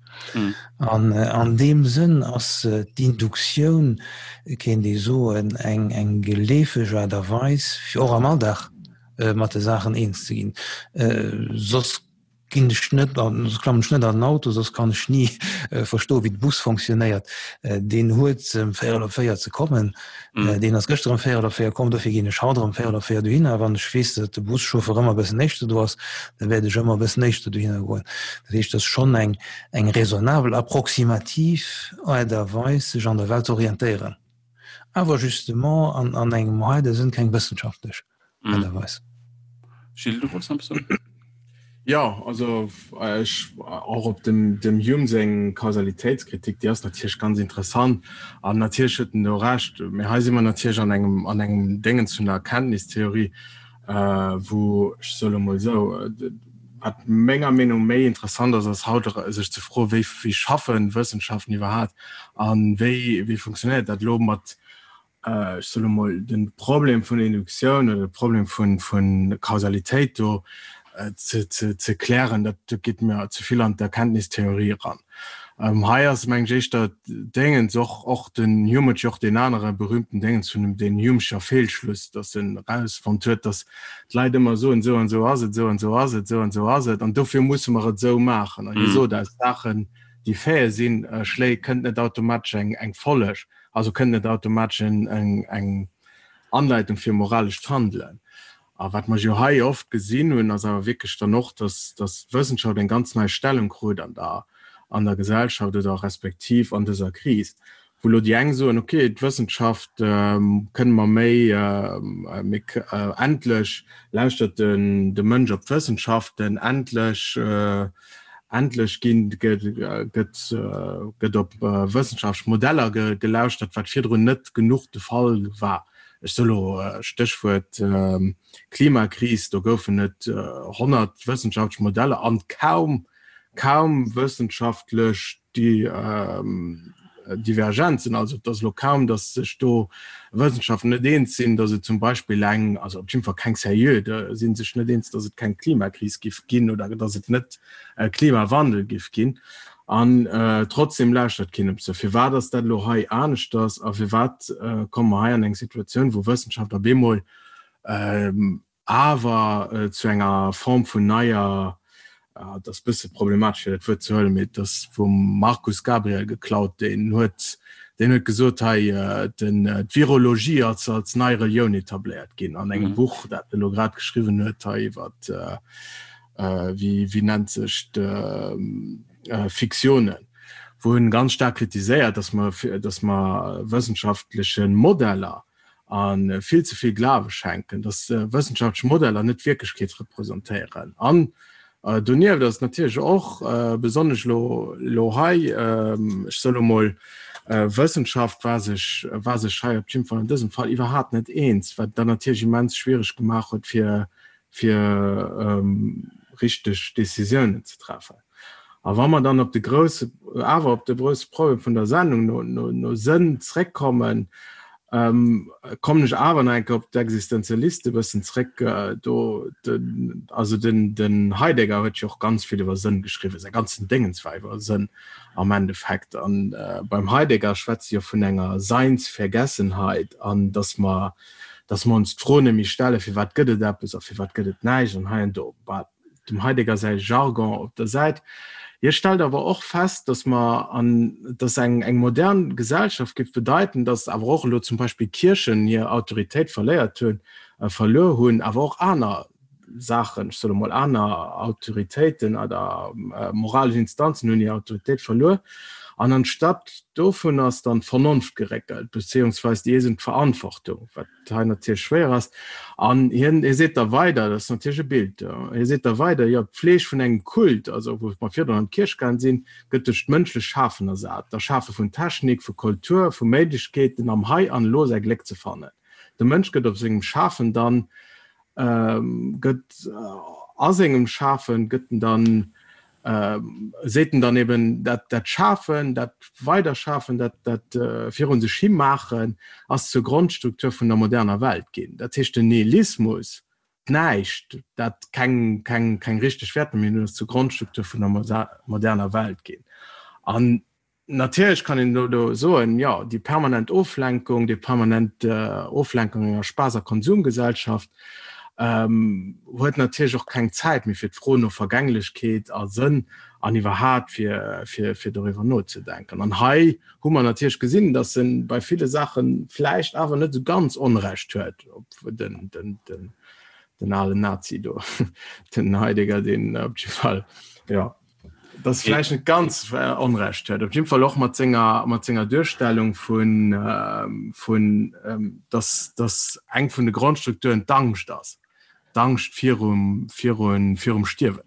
B: An an deem Sënn ass d'Induktioun, kéint ee soen, eng, eng geleefeg Aart a Weis, fir och am Alldag mat de Saachen eens ze ginn. Soss. ginn ech net an, soss klammen ech net an den Auto, soss kann ech ni verstoen, wéi de Bus fonctionnéiert. Deen huet ëm véierel op 4 ze kommen, deen ass gëschter ëm véierel op 4 komm, dofir ginn ech haut erëm véierel op 4 dohinner. Wann ech weess, datt de Buschauffeur ëmmer e bëssen éischter do ass, da wäert ech ëmmer e bëssen éischter dohinner goen. Dat heescht, et ass schonn eng, eng raisonnabel, approximativ Aart a Weis, sech an der Welt ze orientéieren, awer justement an, an engem heide Sënn keng wëssenschaftlech.
A: Aart a Weis. Gilles, du wollts nach eppes soen?
C: Jo, also ech och op dem dem Hume seng Kausalitéitskritik, déi ass natierlech ganz interessant an natierlech huet en do Recht. Mee hei si mer natierlech an engem an engem Déngens vun der Erkenntnistheorie, wou, ech soe lo mol esou, wat menger Meenung méi interessant ass, ass haut sech ze froen, wéi wéi schaffen Wëssenschaften iwwerhaapt an wéi wéi funktionéiert dat elo mat ech soe lo mol, de Problem vun Induktioun oder de Problem vu Kausalitéit do ze klären, dat geet mir ze vill an d'Erkenntnistheorie eran. Hei ass, mengen ech, éischter d'Déngens, och och den Hume huet jo och deen anere berühmten Déngens vun dem deen Humescher Feelschluss, datt en erausfonnt huet, datt d'Leit ëmmer soen, esou an esou ass et, esou an esou ass et, esou an esou ass et, an dofir musse mer et esou maachen. An hie sot, aus Saachen, déi Faite sinn, schléi kënnt net automatesch eng Folleg. Also kënnt net automatesch eng Anleitung fir moralescht Handelen. A wat mer jo hei oft gesinn hunn, ass awer wierklech dann och, dass d'Wëssenschaft eng ganz nei Stellung krut an der an der Gesellschaft oder respektiv an dëser Kris, wou elo déi eng soen, okay, d'Wëssenschaft kënne mer méi, méi endlech lauschtert de Mënsch op d'Wëssenschaften, endlech Endlech ginn, gëtt, gëtt op wëssenschaftlech Modeller gelauschtert, wat virdrun net genuch de Fall war. Ech soe lo Stéchwuert Klimakris, do goufen et 100 wëssenschaftlech Modeller an kaum, kaum wëssenschaftlech Divergenzen. Also et ass elo kaum, datt sech do Wëssenschaftler net eens sinn, datt et zum Beispill eng, also op jidde Fall keng seriö, da si sech net eens, datt et keng Klimakris giff ginn oder datt et net e Klimawandel giff ginn. An trotzdem lauschtert keen op se. Firwat ass dat elo hei aneschters a firwat komme mer hei an eng Situatioun, wou Wëssenschaft op eemol awer zu enger Form vun neier, et ass bësse problematesch fir dat Wuert ze huelen, mee et ass vum Markus Gabriel geklaut, deen huet, deen huet gesot hei, den, d'Virologie ass als nei Relioun etabléiert ginn an engem Buch, dat e lo grad geschriwwen huet hei iwwer, wéi, wéi nennt sech d'Fiktiounen, wou en ganz staark kritiséiert, datt mer, datt mer wëssenschaftleche Modeller, a vill ze vill Glawe schenken, datt wëssenschaftlech Modeller net d'Wierklechkeet representéieren. An donieft ass et natierlech och, besonnesch elo elo hei, ech soe lo mol, Wëssenschaft war sech war sech hei op jidde Fall an dësem Fall iwwerhaapt net eens, wat et dann natierlech immens schwiereg gemaach huet, fir fir richteg Décisiounen ze treffen. A wa mer dann op de grousse, awer op de grousse Problem vun der Sendung no, no, no Sënn zréckkommen, kommen ech awer nach eng Kéier op d'Existenzialiste e bëssen zréck. Do, den, also den, den Heidegger huet jo och ganz vill iwwer Sënn geschriwwen, säi ganzen Déngens war iwwer Sënn am Endeffekt. An beim Heidegger schwätze jo vun enger Seinsvergessenheit an dass mer, dass mer ons d'Fro net méi stellen, firwat gëtt et eppes a firwat gëtt et näischt an hei an do. Bah, dem Heidegger säi Jargon op der Säit. Hie stellt awer och fest, datt mer an, datt eng, eng modern Gesellschaft géif bedeiten, datt awer och elo zum Beispill d'Kierchen hir Autoritéit verléiert hunn, verluer hunn, awer och aner Saachen, ech soe mol aner Autoritéiten oder moralesch Instanzen hunn hir Autoritéit verluer. An anstatt dovun ass dann d'Vernonft geréckelt, beziehungsweis déi eegen Verantwortung, wat hei natierlech schwéier ass. An hien, hie seet da weider, dat ass natierlech e Bild, hie seet da weider, jo, d'Pfleg vun engem Kult, also wou mer virdrun an d'Kierch gaang sinn, gëtt duerch d'mënschlech Schafen ersat, d'Erschafe vun Technik, vu Kultur, vu Méiglechkeeten am Hei an Elo säi Gléck ze fannen. De Mënsch gëtt op sengem Schafen dann, gëtt a sengem Schafen, gëtt en dann, seet en dann eben, dat, dat Schafen, dat Weiderschafen, dat, dat virun sech hi maachen, ass zur Grondstruktur vun der moderner Welt ginn. Dat heescht, den Nihilismus, d'Näischt, dat keng, keng, keng richteg Wäerter méi hunn, ass zur Grondstruktur vun der moderner Welt ginn. An Natierlech kann een elo soen, jo, déi permanent Oflenkung, déi permanent Oflenkung enger Spaass a Konsumgesellschaft. Huet natierlech och keng Zäit méi fir d'Fro no Vergänglechkeet a Sënn an iwwerhat fir, fir, fir doriwwer nozedenken. An hei hu mer natierlech gesinn, datt e bei ville Saache vläicht awer net esou ganz Onrecht huet, op den, den, den, den alen Nazi do, den Heidegger, deen op jidde Fall, jo, datt vläicht net ganz Onrecht huet, op jidde Fall och mat senger, mat senger Duerstellung vun, vun, datt, datt eng vun de Grondstrukturen d'Angscht ass, d'Angscht virum, virun, virum Stierwen.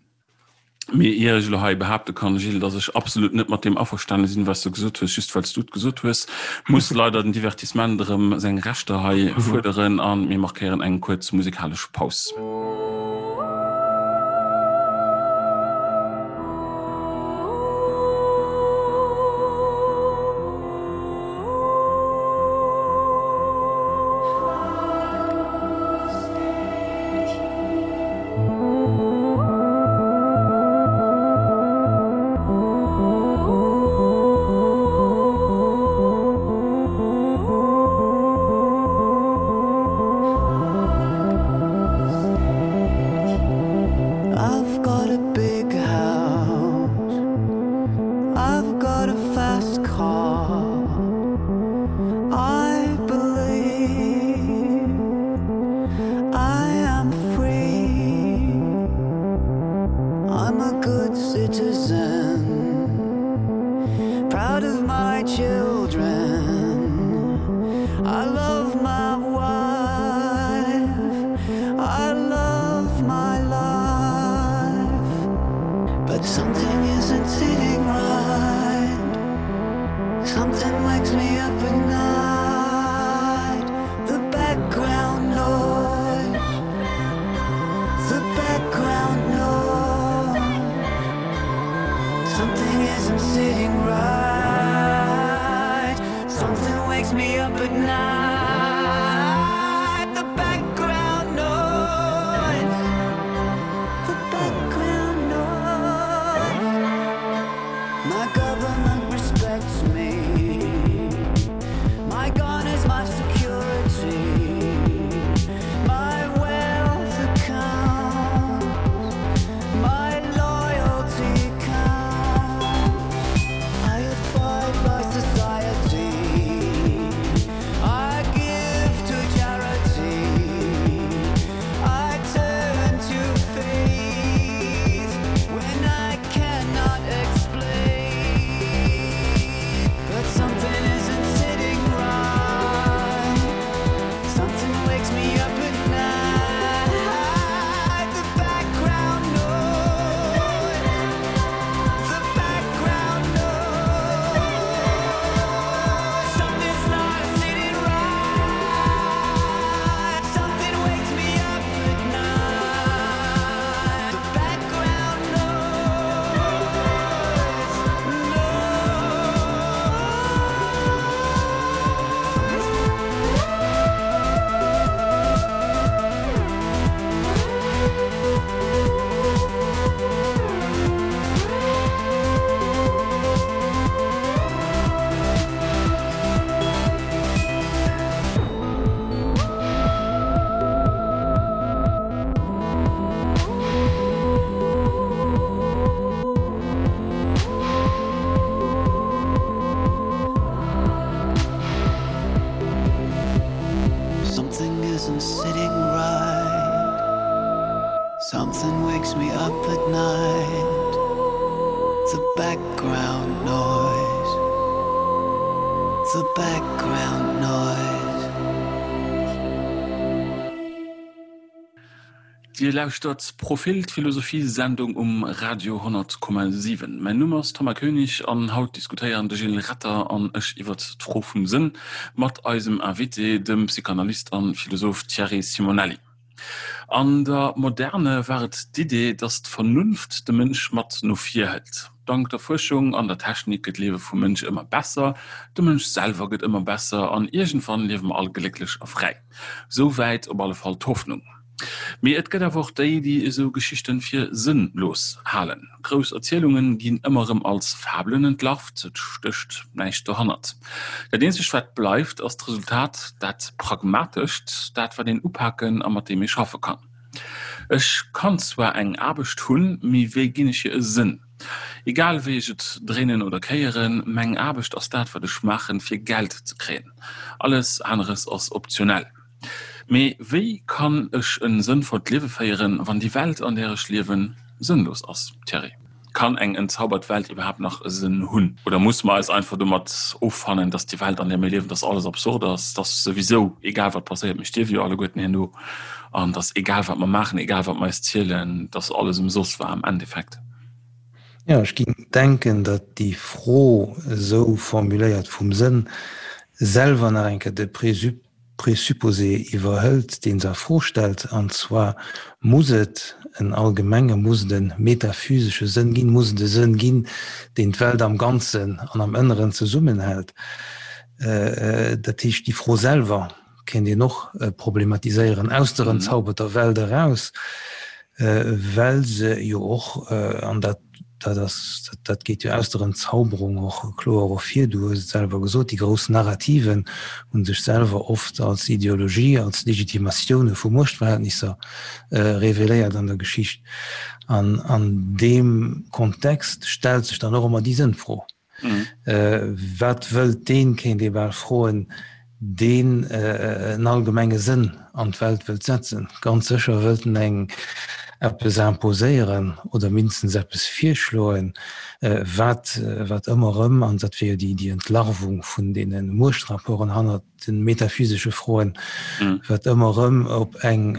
A: Mee ier ech elo hei behaapte kann, Gilles, dass ech absolut net mat deem averstane sinn, wat s du gesot hues, just well s du et gesot hues, muss leider den Divertissement erëm seng Rechter hei fuerderen a mir markéieren eng kuerz musikalesch Paus. Dir lauschtert Profil, d'Philosophie-Sendung um Radio 100,7. Mäin Numm ass Thomas Koenig an haut diskutéieren de Gilles Retter an ech iwwert d'Fro vum Sënn mat eisem Invité, dem Psychanalyst an Philosoph Thierry Simonelli. An der Moderne war et d'Idee, datt d'Vernunft de Mënsch mat no vir hëlt. Dank der Fuerschung an der Technik gëtt d'Liewe vum Mënsch ëmmer besser, de Mënsch selwer gëtt ëmmer besser an iergendwann liewe mer all glécklech a fräi. Sou wäit op alle Fall d'Hoffnung. Mee et gëtt awer och déi, déi esou Geschichten fir sënnlos halen. Grouss Erzielungen ginn ëmmer erëm als Fabelen entlarvt, et stécht näischt dohannert. Dat eenzegt wat bleift ass d'Resultat, dat pragmatescht, dat wat een upaken a mat deem ee schaffe kann. Ech kann zwar eng Aarbecht hunn, mee wéi ginn ech hir e Sënn? Egal wéi ech et dréinen oder kéieren, meng Aarbecht ass dat wat ech maachen fir Geld ze kréien. Alles aneres ass optionell. Mee wéi kann ech e sënnvollt Liewe féieren, wann déi Welt an där ech liewen sënnlos ass? Thierry, Kann eng entzaubert Welt iwwerhaapt nach e Sënn hunn? Oder musse mer eis einfach domat offannen, dass déi Welt an där mir liewen, dass alles absurd ass, dass souwisou egal wat passéiert, mir stierwe jo alleguerten herno, an dass egal wat mer maachen, egal wat mer eis zielen, dass alles ëmsoss war am Endeffekt?
B: Jo, ech géing denken, datt déi Fro esou formuléiert vum Sënn selwer nach eng Kéier de Présupposé iwwerhëlt, dee se a Fro stellt, an zwar, Muss et en allgemenge, muss et e metaphysesche Sënn ginn, muss et e Sënn ginn, deen d'Welt am Ganzen an am Ënneren zesummenhält? Dat heescht, déi Fro selwer kéint een och problematiséieren aus der entzauberter Welt eraus, well se jo och, an dat, dat ass, dat geet jo aus der Entzauberung och kloer ervir, du hues et selwer gesot, déi grouss Narrativen hu sech selwer oft als Ideologie, als Legitimatioune vu Muechtverhältnisser reveléiert an der Geschicht. An an deem Kontext stellt sech dann och ëmmer déi Sënnfro. Wat wëllt deen, kéint ee bal froen, deen en allgemenge Sënn an d'Welt wëllt setzen? Ganz sécher wëllt en eng eppes imposéieren oder mindestens eppes virschloen, wat, wat ëmmer erëm, an dat wier jo déi Entlarvung vun deene Muechtrapporten hannert de metaphysesche Froen, wat ëmmer erëm op eng,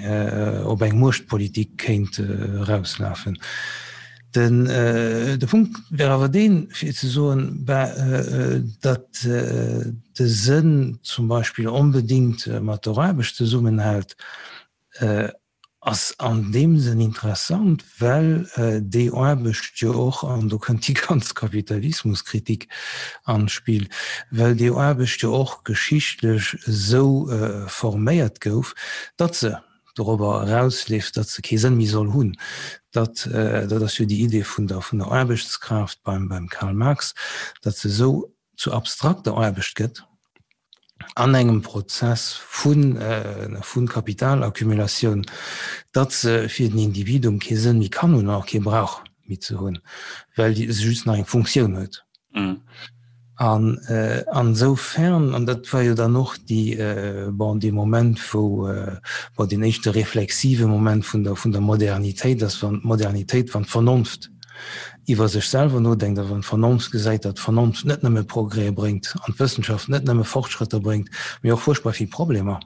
B: op eng Muechtpolitik kéint erauslafen. Den, de Punkt wär awer deen, fir ze soen, ben, datt de Sënn zum Beispill onbedéngt mat der Aarbecht zesummenhält, ass an deem Sënn interessant, well déi Aarbecht jo och, an do kënnt déi ganz Kapitalismuskritik an d'Spill, well déi Aarbecht jo och geschichtlech esou forméiert gouf, datt se dorobber erausleeft, datt se kee Sënn méi soll hunn. Dat, dat ass jo déi Idee vun der, vun der Aarbechtskraaft beim, beim Karl Marx, datt se esou zu abstrakter Aarbecht gëtt an engem Prozess vun, vu Kapitalaccumulatioun, datt se fir den Individuum kee Sënn méi kann hunn an och kee brauch méi ze hunn, well se just nach eng Funktioun huet. An ansoufern, an dat war jo dann och déi, bon, dee Moment, wou, bon, deen éischte reflexive Moment vun der, vun der Modernitéit ass, wann d'Modernitéit, wann d'Vernonft iwwer sech selwer nodenkt a wann d'Vernonft gesäit, datt d'Vernonft net nëmme Progrès bréngt an d'Wëssenschaft net nëmme Fortschrëtter bréngt, mee och fuerchtbar vill Problemer.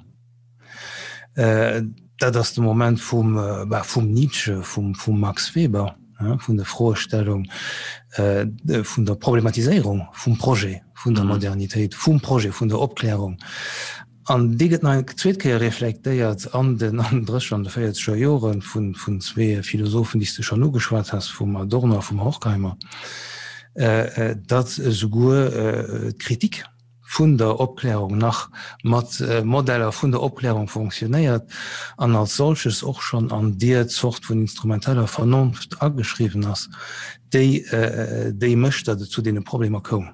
B: Dat ass de Moment vum, bah, vum Nietzsche, vum, vum Max Weber, vun der Froestellung, vun der Problematiséierung vum Projet vun der Modernitéit, vum Projet vun der Opklärung. An dee gëtt nach eng zweet Kéier reflektéiert an den an den drécheger an de véierzeger Jore vun, vun zwee Philosophen, déi s de schonn ugeschwat has, vum Adorno a vum Horkheimer, datt esouguer d'Kritik, vun der Opklärung nach mat Modeller vun der Opklärung fonctionnéiert an als solches och schonn an deer Zort vun instrumenteller Vernonft ageschriwwen ass, déi déi mécht, datt et zu deene Problemer koum.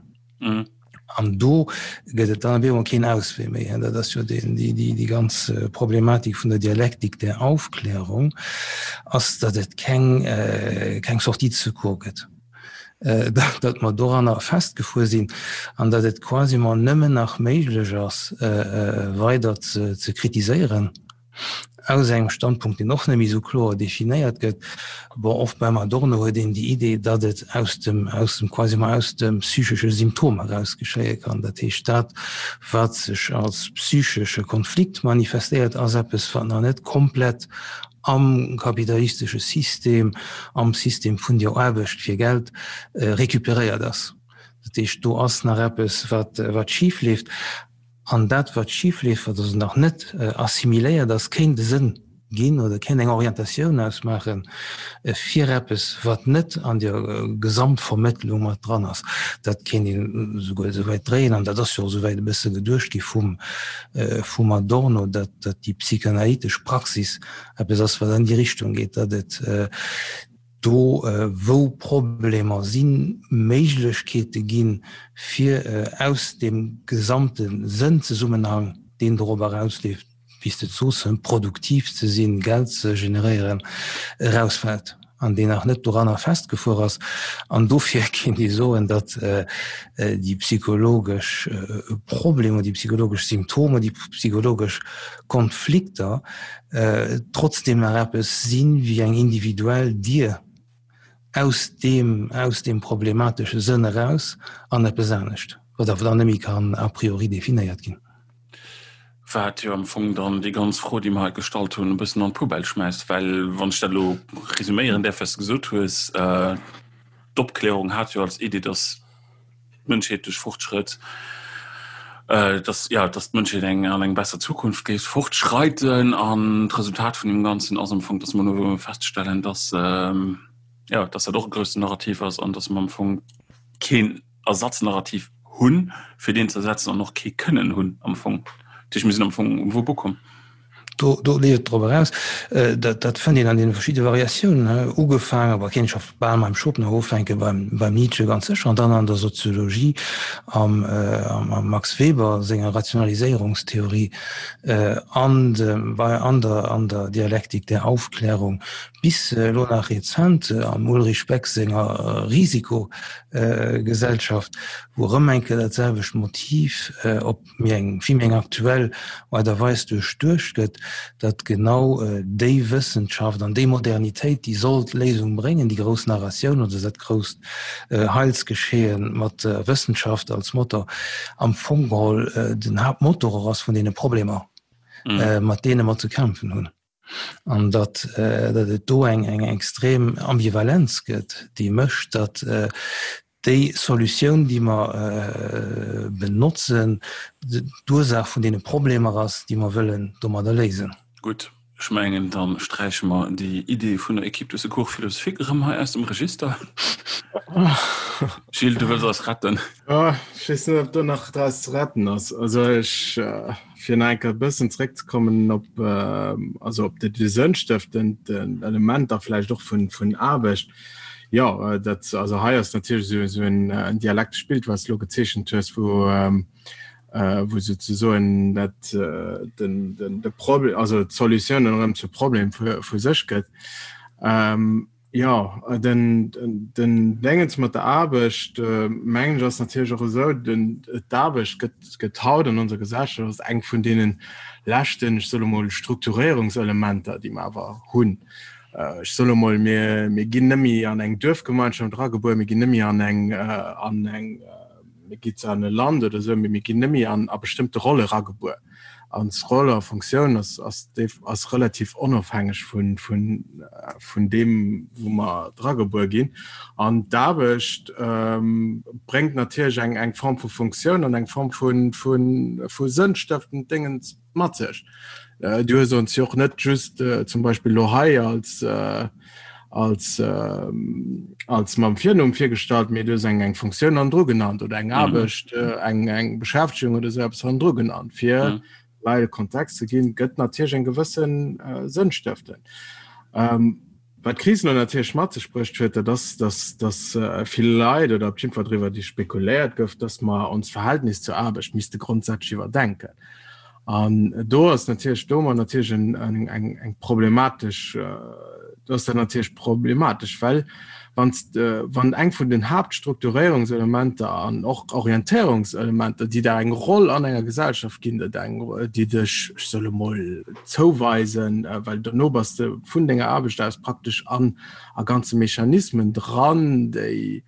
B: An do gëtt et dann op eemol keen Auswee méi. Dat ass jo déi ganz Problematik vun der Dialektik der Aufklärung, ass, datt et keng keng Sortie de secours gëtt. datt mer doranner festgefuer sinn an datt et quasiment nëmmen nach méiglech ass, weider ze kritiséieren aus engem Standpunkt, deen och net méi esou kloer definéiert gëtt. Bon, oft beim Adorno huet een déi Idee, datt et aus dem, aus dem, quasiment aus dem psychesche Symptom eraus geschéie kann. Dat heescht, dat, wat sech als psychesche Konflikt manifestéiert, ass eppes, wat nach net komplett am kapitalistesche System, am System vun der Aarbecht fir Geld recuperéiert ass. Dat heescht, do ass nach eppes, wat, wat schif leeft. An dat, wat schif leeft, wat also nach net assimiléiert ass, kéint e Sënn ginn oder kéint eng Orientatioun ausmaache fir eppes, wat net an der Gesamtvermëttlung mat dran ass. Dat kéint een esouguer esouwäit dréien, an dat ass jo och esouwäit e bësse geduecht gi vum, vum Adorno, datt déi psychanalytesch Praxis eppes ass, wat an déi Richtung geet, datt et do, wou Problemer sinn, Méiglechkeete ginn, fir aus deem gesamte Sënnzesummenhang, deen dorop erausleeft. wéi s de et soos, produktiv ze sinn, Geld ze generéieren, erausfält an deen nach net doranner festgefuer ass. An dofir kéint ee soen, datt déi psychologesch Problemer, déi psychologesch Symptomer, déi psychologesch Konflikter trotzdeem nach eppes sinn wéi eng individuell Dier aus deem, aus deem problematesche Sënn eraus an eppes anescht, wat awer dann net méi kann a priori definéiert ginn.
A: Wat jo am Fong dann déi ganz Fro, déi mer hei gestallt hunn, e bëssen an d'Poubelle schmäisst, well wann ech dat elo resuméieren däerf, wat s de gesot hues, d'Opklärung hat jo als Idee, datt d'Mënschheet duerch Fortschrëtt, dass, ja, dass d'Mënschheet eng an eng besser Zukunft géif fortschreiten an d'Resultat vun deem Ganzen ass am Fong, dass mer elo feststellen, dass, ja, dass dat och e groussen Narrativ ass an dass mer am Fong keen Ersatznarrativ hunn, fir deen ze ersetzen an och kee kënnen hunn am Fong. Dat heescht, mir sinn am Fong um Wupp ukomm.
B: Do, do leeft et drop eraus, dat, dat fënnt een an deene verschidde Variatiounen, ugefaangen, awer kéint scho bal beim Schopenhauer ufänken, beim, beim Nietzsche ganz sécher, an dann an der Soziologie am, am Max Weber senger Rationaliséierungstheorie, an dem, bei, an der, an der Dialektik der Aufklärung, bis elo nach rezent am Ulrich Beck senger Risikogesellschaft, wou erëm eng Kéier dat selwecht Motiv op méi eng, vill méi eng aktuell Aart a Weis duerchduecht gëtt, datt genau déi Wëssenschaft an déi Modernitéit, déi soll d'Léisung bréngen, déi grouss Narratioun oder dat grousst Heilsgeschehen mat der Wëssenschaft als Motor, am Fong geholl den Haaptmotor och ass vun deene Problemer, mat deene mer ze kämpfen hunn. An datt, datt et do eng, eng extrem Ambivalenz gëtt, déi mécht, datt déi Solutioun, déi mer benotzen, d'Ursaach vun deene Problemer ass, déi mer wëllen domadder léisen.
A: Gutt, ech mengen, da sträiche mer déi Idee vun der Équipe de secours philosophique erëm hei aus dem Register. Gilles, du wëlls eis retten.
C: Ech weess net, ob do nach draus ze retten ass. Also ech. Fir nach eng Kéier e bëssen zréckzekommen op, also op déi sënnstëftend Elementer vläicht och vun, vun Aarbecht. Jo, dat, also hei ass natierlech esou, esou en, en dialektescht Bild, wat s de elo gezeechent hues, wou, wou souzesoen dat, den, den, de Problem, also d'Solutioun dann erëm zum Problem vu, vu sech gëtt. Jo, den den Déngens mat der Aarbecht, mengen ech, ass natierlech och esou, den d'Aarbecht gëtt gëtt haut an onser Gesellschaft ass eng vun deene leschten, ech soe mol, Strukturéierungselementer, déi mer awer hunn. Ech soe mol, mir mir ginn net méi an eng Duerfgemeinschaft eragebuer, mir ginn net méi an eng an eng, mir gi zwar an e Land oder esou, mee mir ginn net méi an a bestëmmte Rolle eragebuer. An d'Roll a Funktioun ass, ass, ass relativ onofhängeg vun, vun, vun deem, wou mer dragebuer ginn. An d'Aarbecht ähm, bréngt natierlech eng, eng Form vu Funktioun an eng Form vun, vun, vu sënnstëftend Déngens mat sech. Äh, du hues ons jo och net just äh, zum Beispill lo hei als, äh, als, äh, als mam Virnumm virgestallt, mee du hues eng eng Funktioun hannendru genannt oder eng mhm. Aarbecht, mhm. äh, eng, eng Beschäftegung oder so etwas hannendru genannt. Fir mhm. Leit e Kontext ze ginn, gëtt natierlech eng gewëssen äh, Sënn stëften. Ähm, wat d'Kris lo natierlech mat sech bruecht huet, dat ass, dass, dass äh, vill Leit oder op jeden Fall driwwer déi spekuléiert gouf, dass mer ons Verhältnis zur Aarbecht misste grondsätzlech iwwerdenken. An do ass natierlech do mer natierlech eng, eng, eng, eng problematesch, do ass dat natierlech problematesch, well wann wann eng vun den Haaptstrukturéierungselementer an och Orientéierungselementer, déi der eng Roll an enger Gesellschaft ginn, dat eng, déi dech, ech soll emol, zouweisen, well dono bass de vun denger Aarbecht aus praktesch an a ganze Mechanismen dran, déi,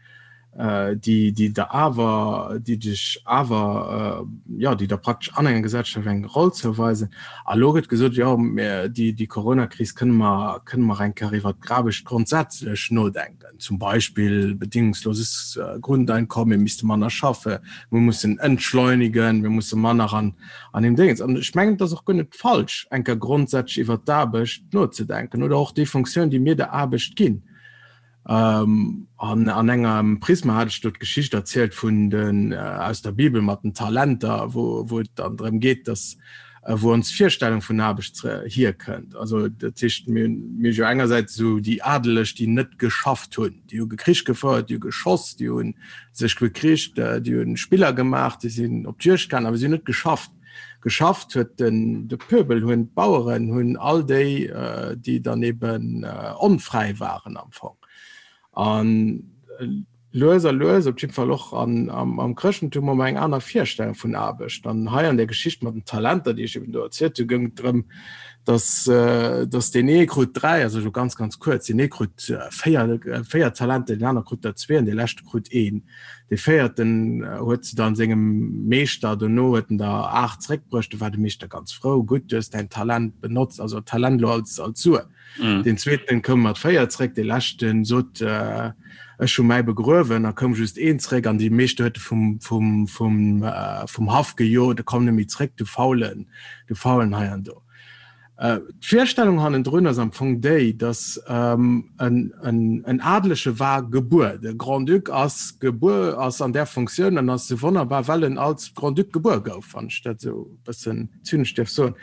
C: déi déi der awer déi dech awer jo déi der praktesch an enger Gesellschaft eng Roll zouweisen. A lo gëtt gesot, jo mir déi déi Coronakris kënne mer kënne mer eng Kéier iwwert d'Aarbecht grondsätzlech nodenken, zum Beispill bedingungsloses Grundeinkommen, mir misste manner schaffe, mir mussen entschleunigen, mir musse manner an an deem Déngens. An ech mengen, et ass och guer net falsch eng Kéier grondsätzlech iwwert d'Aarbecht nozedenken oder och déi Funktioun déi mir der Aarbecht ginn. Ähm, an an engem Prisma hat ech do d'Geschicht erzielt vun den äh, aus der Bibel mat den Talenter, wo, wo et dann drëm geet, dass äh, wou ons Virstellung vun Aarbecht hierkënnt. Also dat heescht mir mir jo engersäits esou déi Adeleg, déi net geschafft hunn, déi hu Krich gefouert, déi hu geschoss, déi hu sech bekricht, äh, déi hunn Spiller gemaach, déi sinn op d'Juegd gaangen, awer si hunn net geschafft. Geschafft huet den de Pöbel, hunn d'Baueren, hunn all déi, déi dann eben onfräi waren am Fong. An lues a lues, op jiddwer Fall och an, am, am Chrëschtentum, hu mer eng aner Virstellung vun Aarbecht. An hei an der Geschicht mat den Talenter, déi ech eben do erzielt hu, goung et drëm, dass, dass deen ee krut 3, also elo ganz, ganz kuerz, deen ee krut 4, 4 Talenter, deen aner krut der zwee an dee leschte krut een. Dee véierten huet se dann sengem Meeschter, dono huet en der 8 zréckbruecht, du war de Meeschter ganz frou, gutt, du hues däin Talent benotzt, also Talent elo als, als Sue. Mm. Den zweeten koum mat 4 zréck, de leschten sot äh, ech hu mäi begruewen, a koum just een zréck an die Meeschter huet vum, vum, vum, äh, vum Haff gejot, komm net méi zréck, du faulen, du faulen hei an do. Äh, D'Virstellung hannendrun ass am Fong déi, datt ähm, en, en, en Adelege war gebuer. De Grand-Duc ass gebuer, ass an där Funktioun an ass sou wonnerbar, well en als Grand-Duc gebuer gouf, wann ech dat sou e bëssen zynesch dierf soen.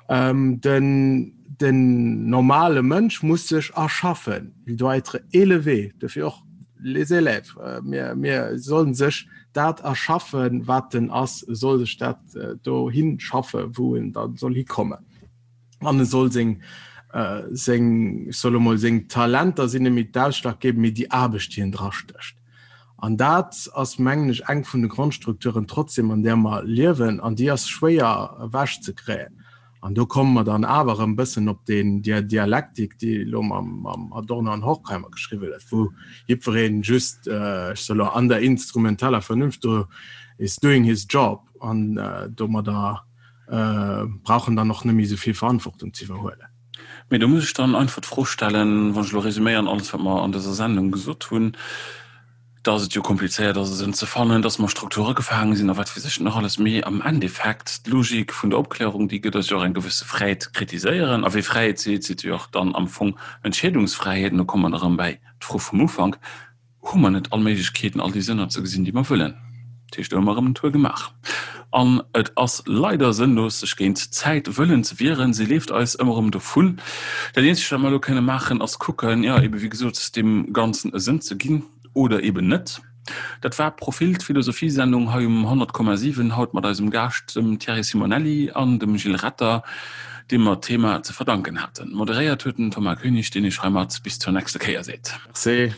C: Ähm, den, Den normale Mënsch muss sech erschaffen, il doit être élevé, dofir och les élèves, mir, mir sollen sech dat erschaffen, wat en ass, e soll sech dat dohi schaffen, wou en da soll hikommen. An e soll seng, seng, ech soe lo mol, seng Talenter sinn net méi d'ausschlaggebend, mee déi Aarbecht, déi en drastécht. An dat ass, mengen ech, eng vun de Grondstrukturen trotzdem, an där mer liewen, an déi ass schwéier ewechzekréien. An do komme mer dann awer erëm e bëssen op deen, déi Dialektik, déi elo mam Adorno an Horkheimer geschriwwen gëtt, wou jiddweree just, ech soe elo, an der instrumentaler Vernunft do is doing his job an domadder brauch en dann och net méi esou vill Verantwortung ze iwwerhuelen.
A: Mee do muss ech dann einfach d'Fro stellen, wann ech elo resuméieren alles, wat mer an dëser Sendung gesot hunn, dass et jo komplizéiert ass, e Sënn ze fannen, dass mer Strukture gefaange sinn a wat weess ech nach alles. Mee am Endeffekt, d'Logik vun der Opklärung, déi gëtt eis jo och eng gewësse Fräiheet ze kritiséieren. A wee Fräiheet seet, seet jo och dann am Fong Entscheedungsfräiheet. An do komme mer erëm bäi d'Fro vum Ufank, Hu mer net all Méiglechkeeten, all déi Sënner ze gesinn, déi mer wëllen? Dat heescht, do hu mer erëm en Tour gemaach. An et ass leider sënnlos, sech géint d'Zäit wëllen ze wieren. Si leeft eis ëmmer erëm dovun. Dat eenzegt, wat mer elo kënne maachen, ass kucken, jo, ebe wéi gesot, deem Ganzen e Sënn ze ginn oder eben net. Dat war Profil, d'Philosophiesendung hei um 100,7, haut mat eisem Gaascht, dem Thierry Simonelli an dem Gilles Retter, deem mer d'Thema ze verdanken haten. Moderéiert huet den Thomas Koenig, deen Iech heimat bis zur nächster Kéier seet.
C: Merci.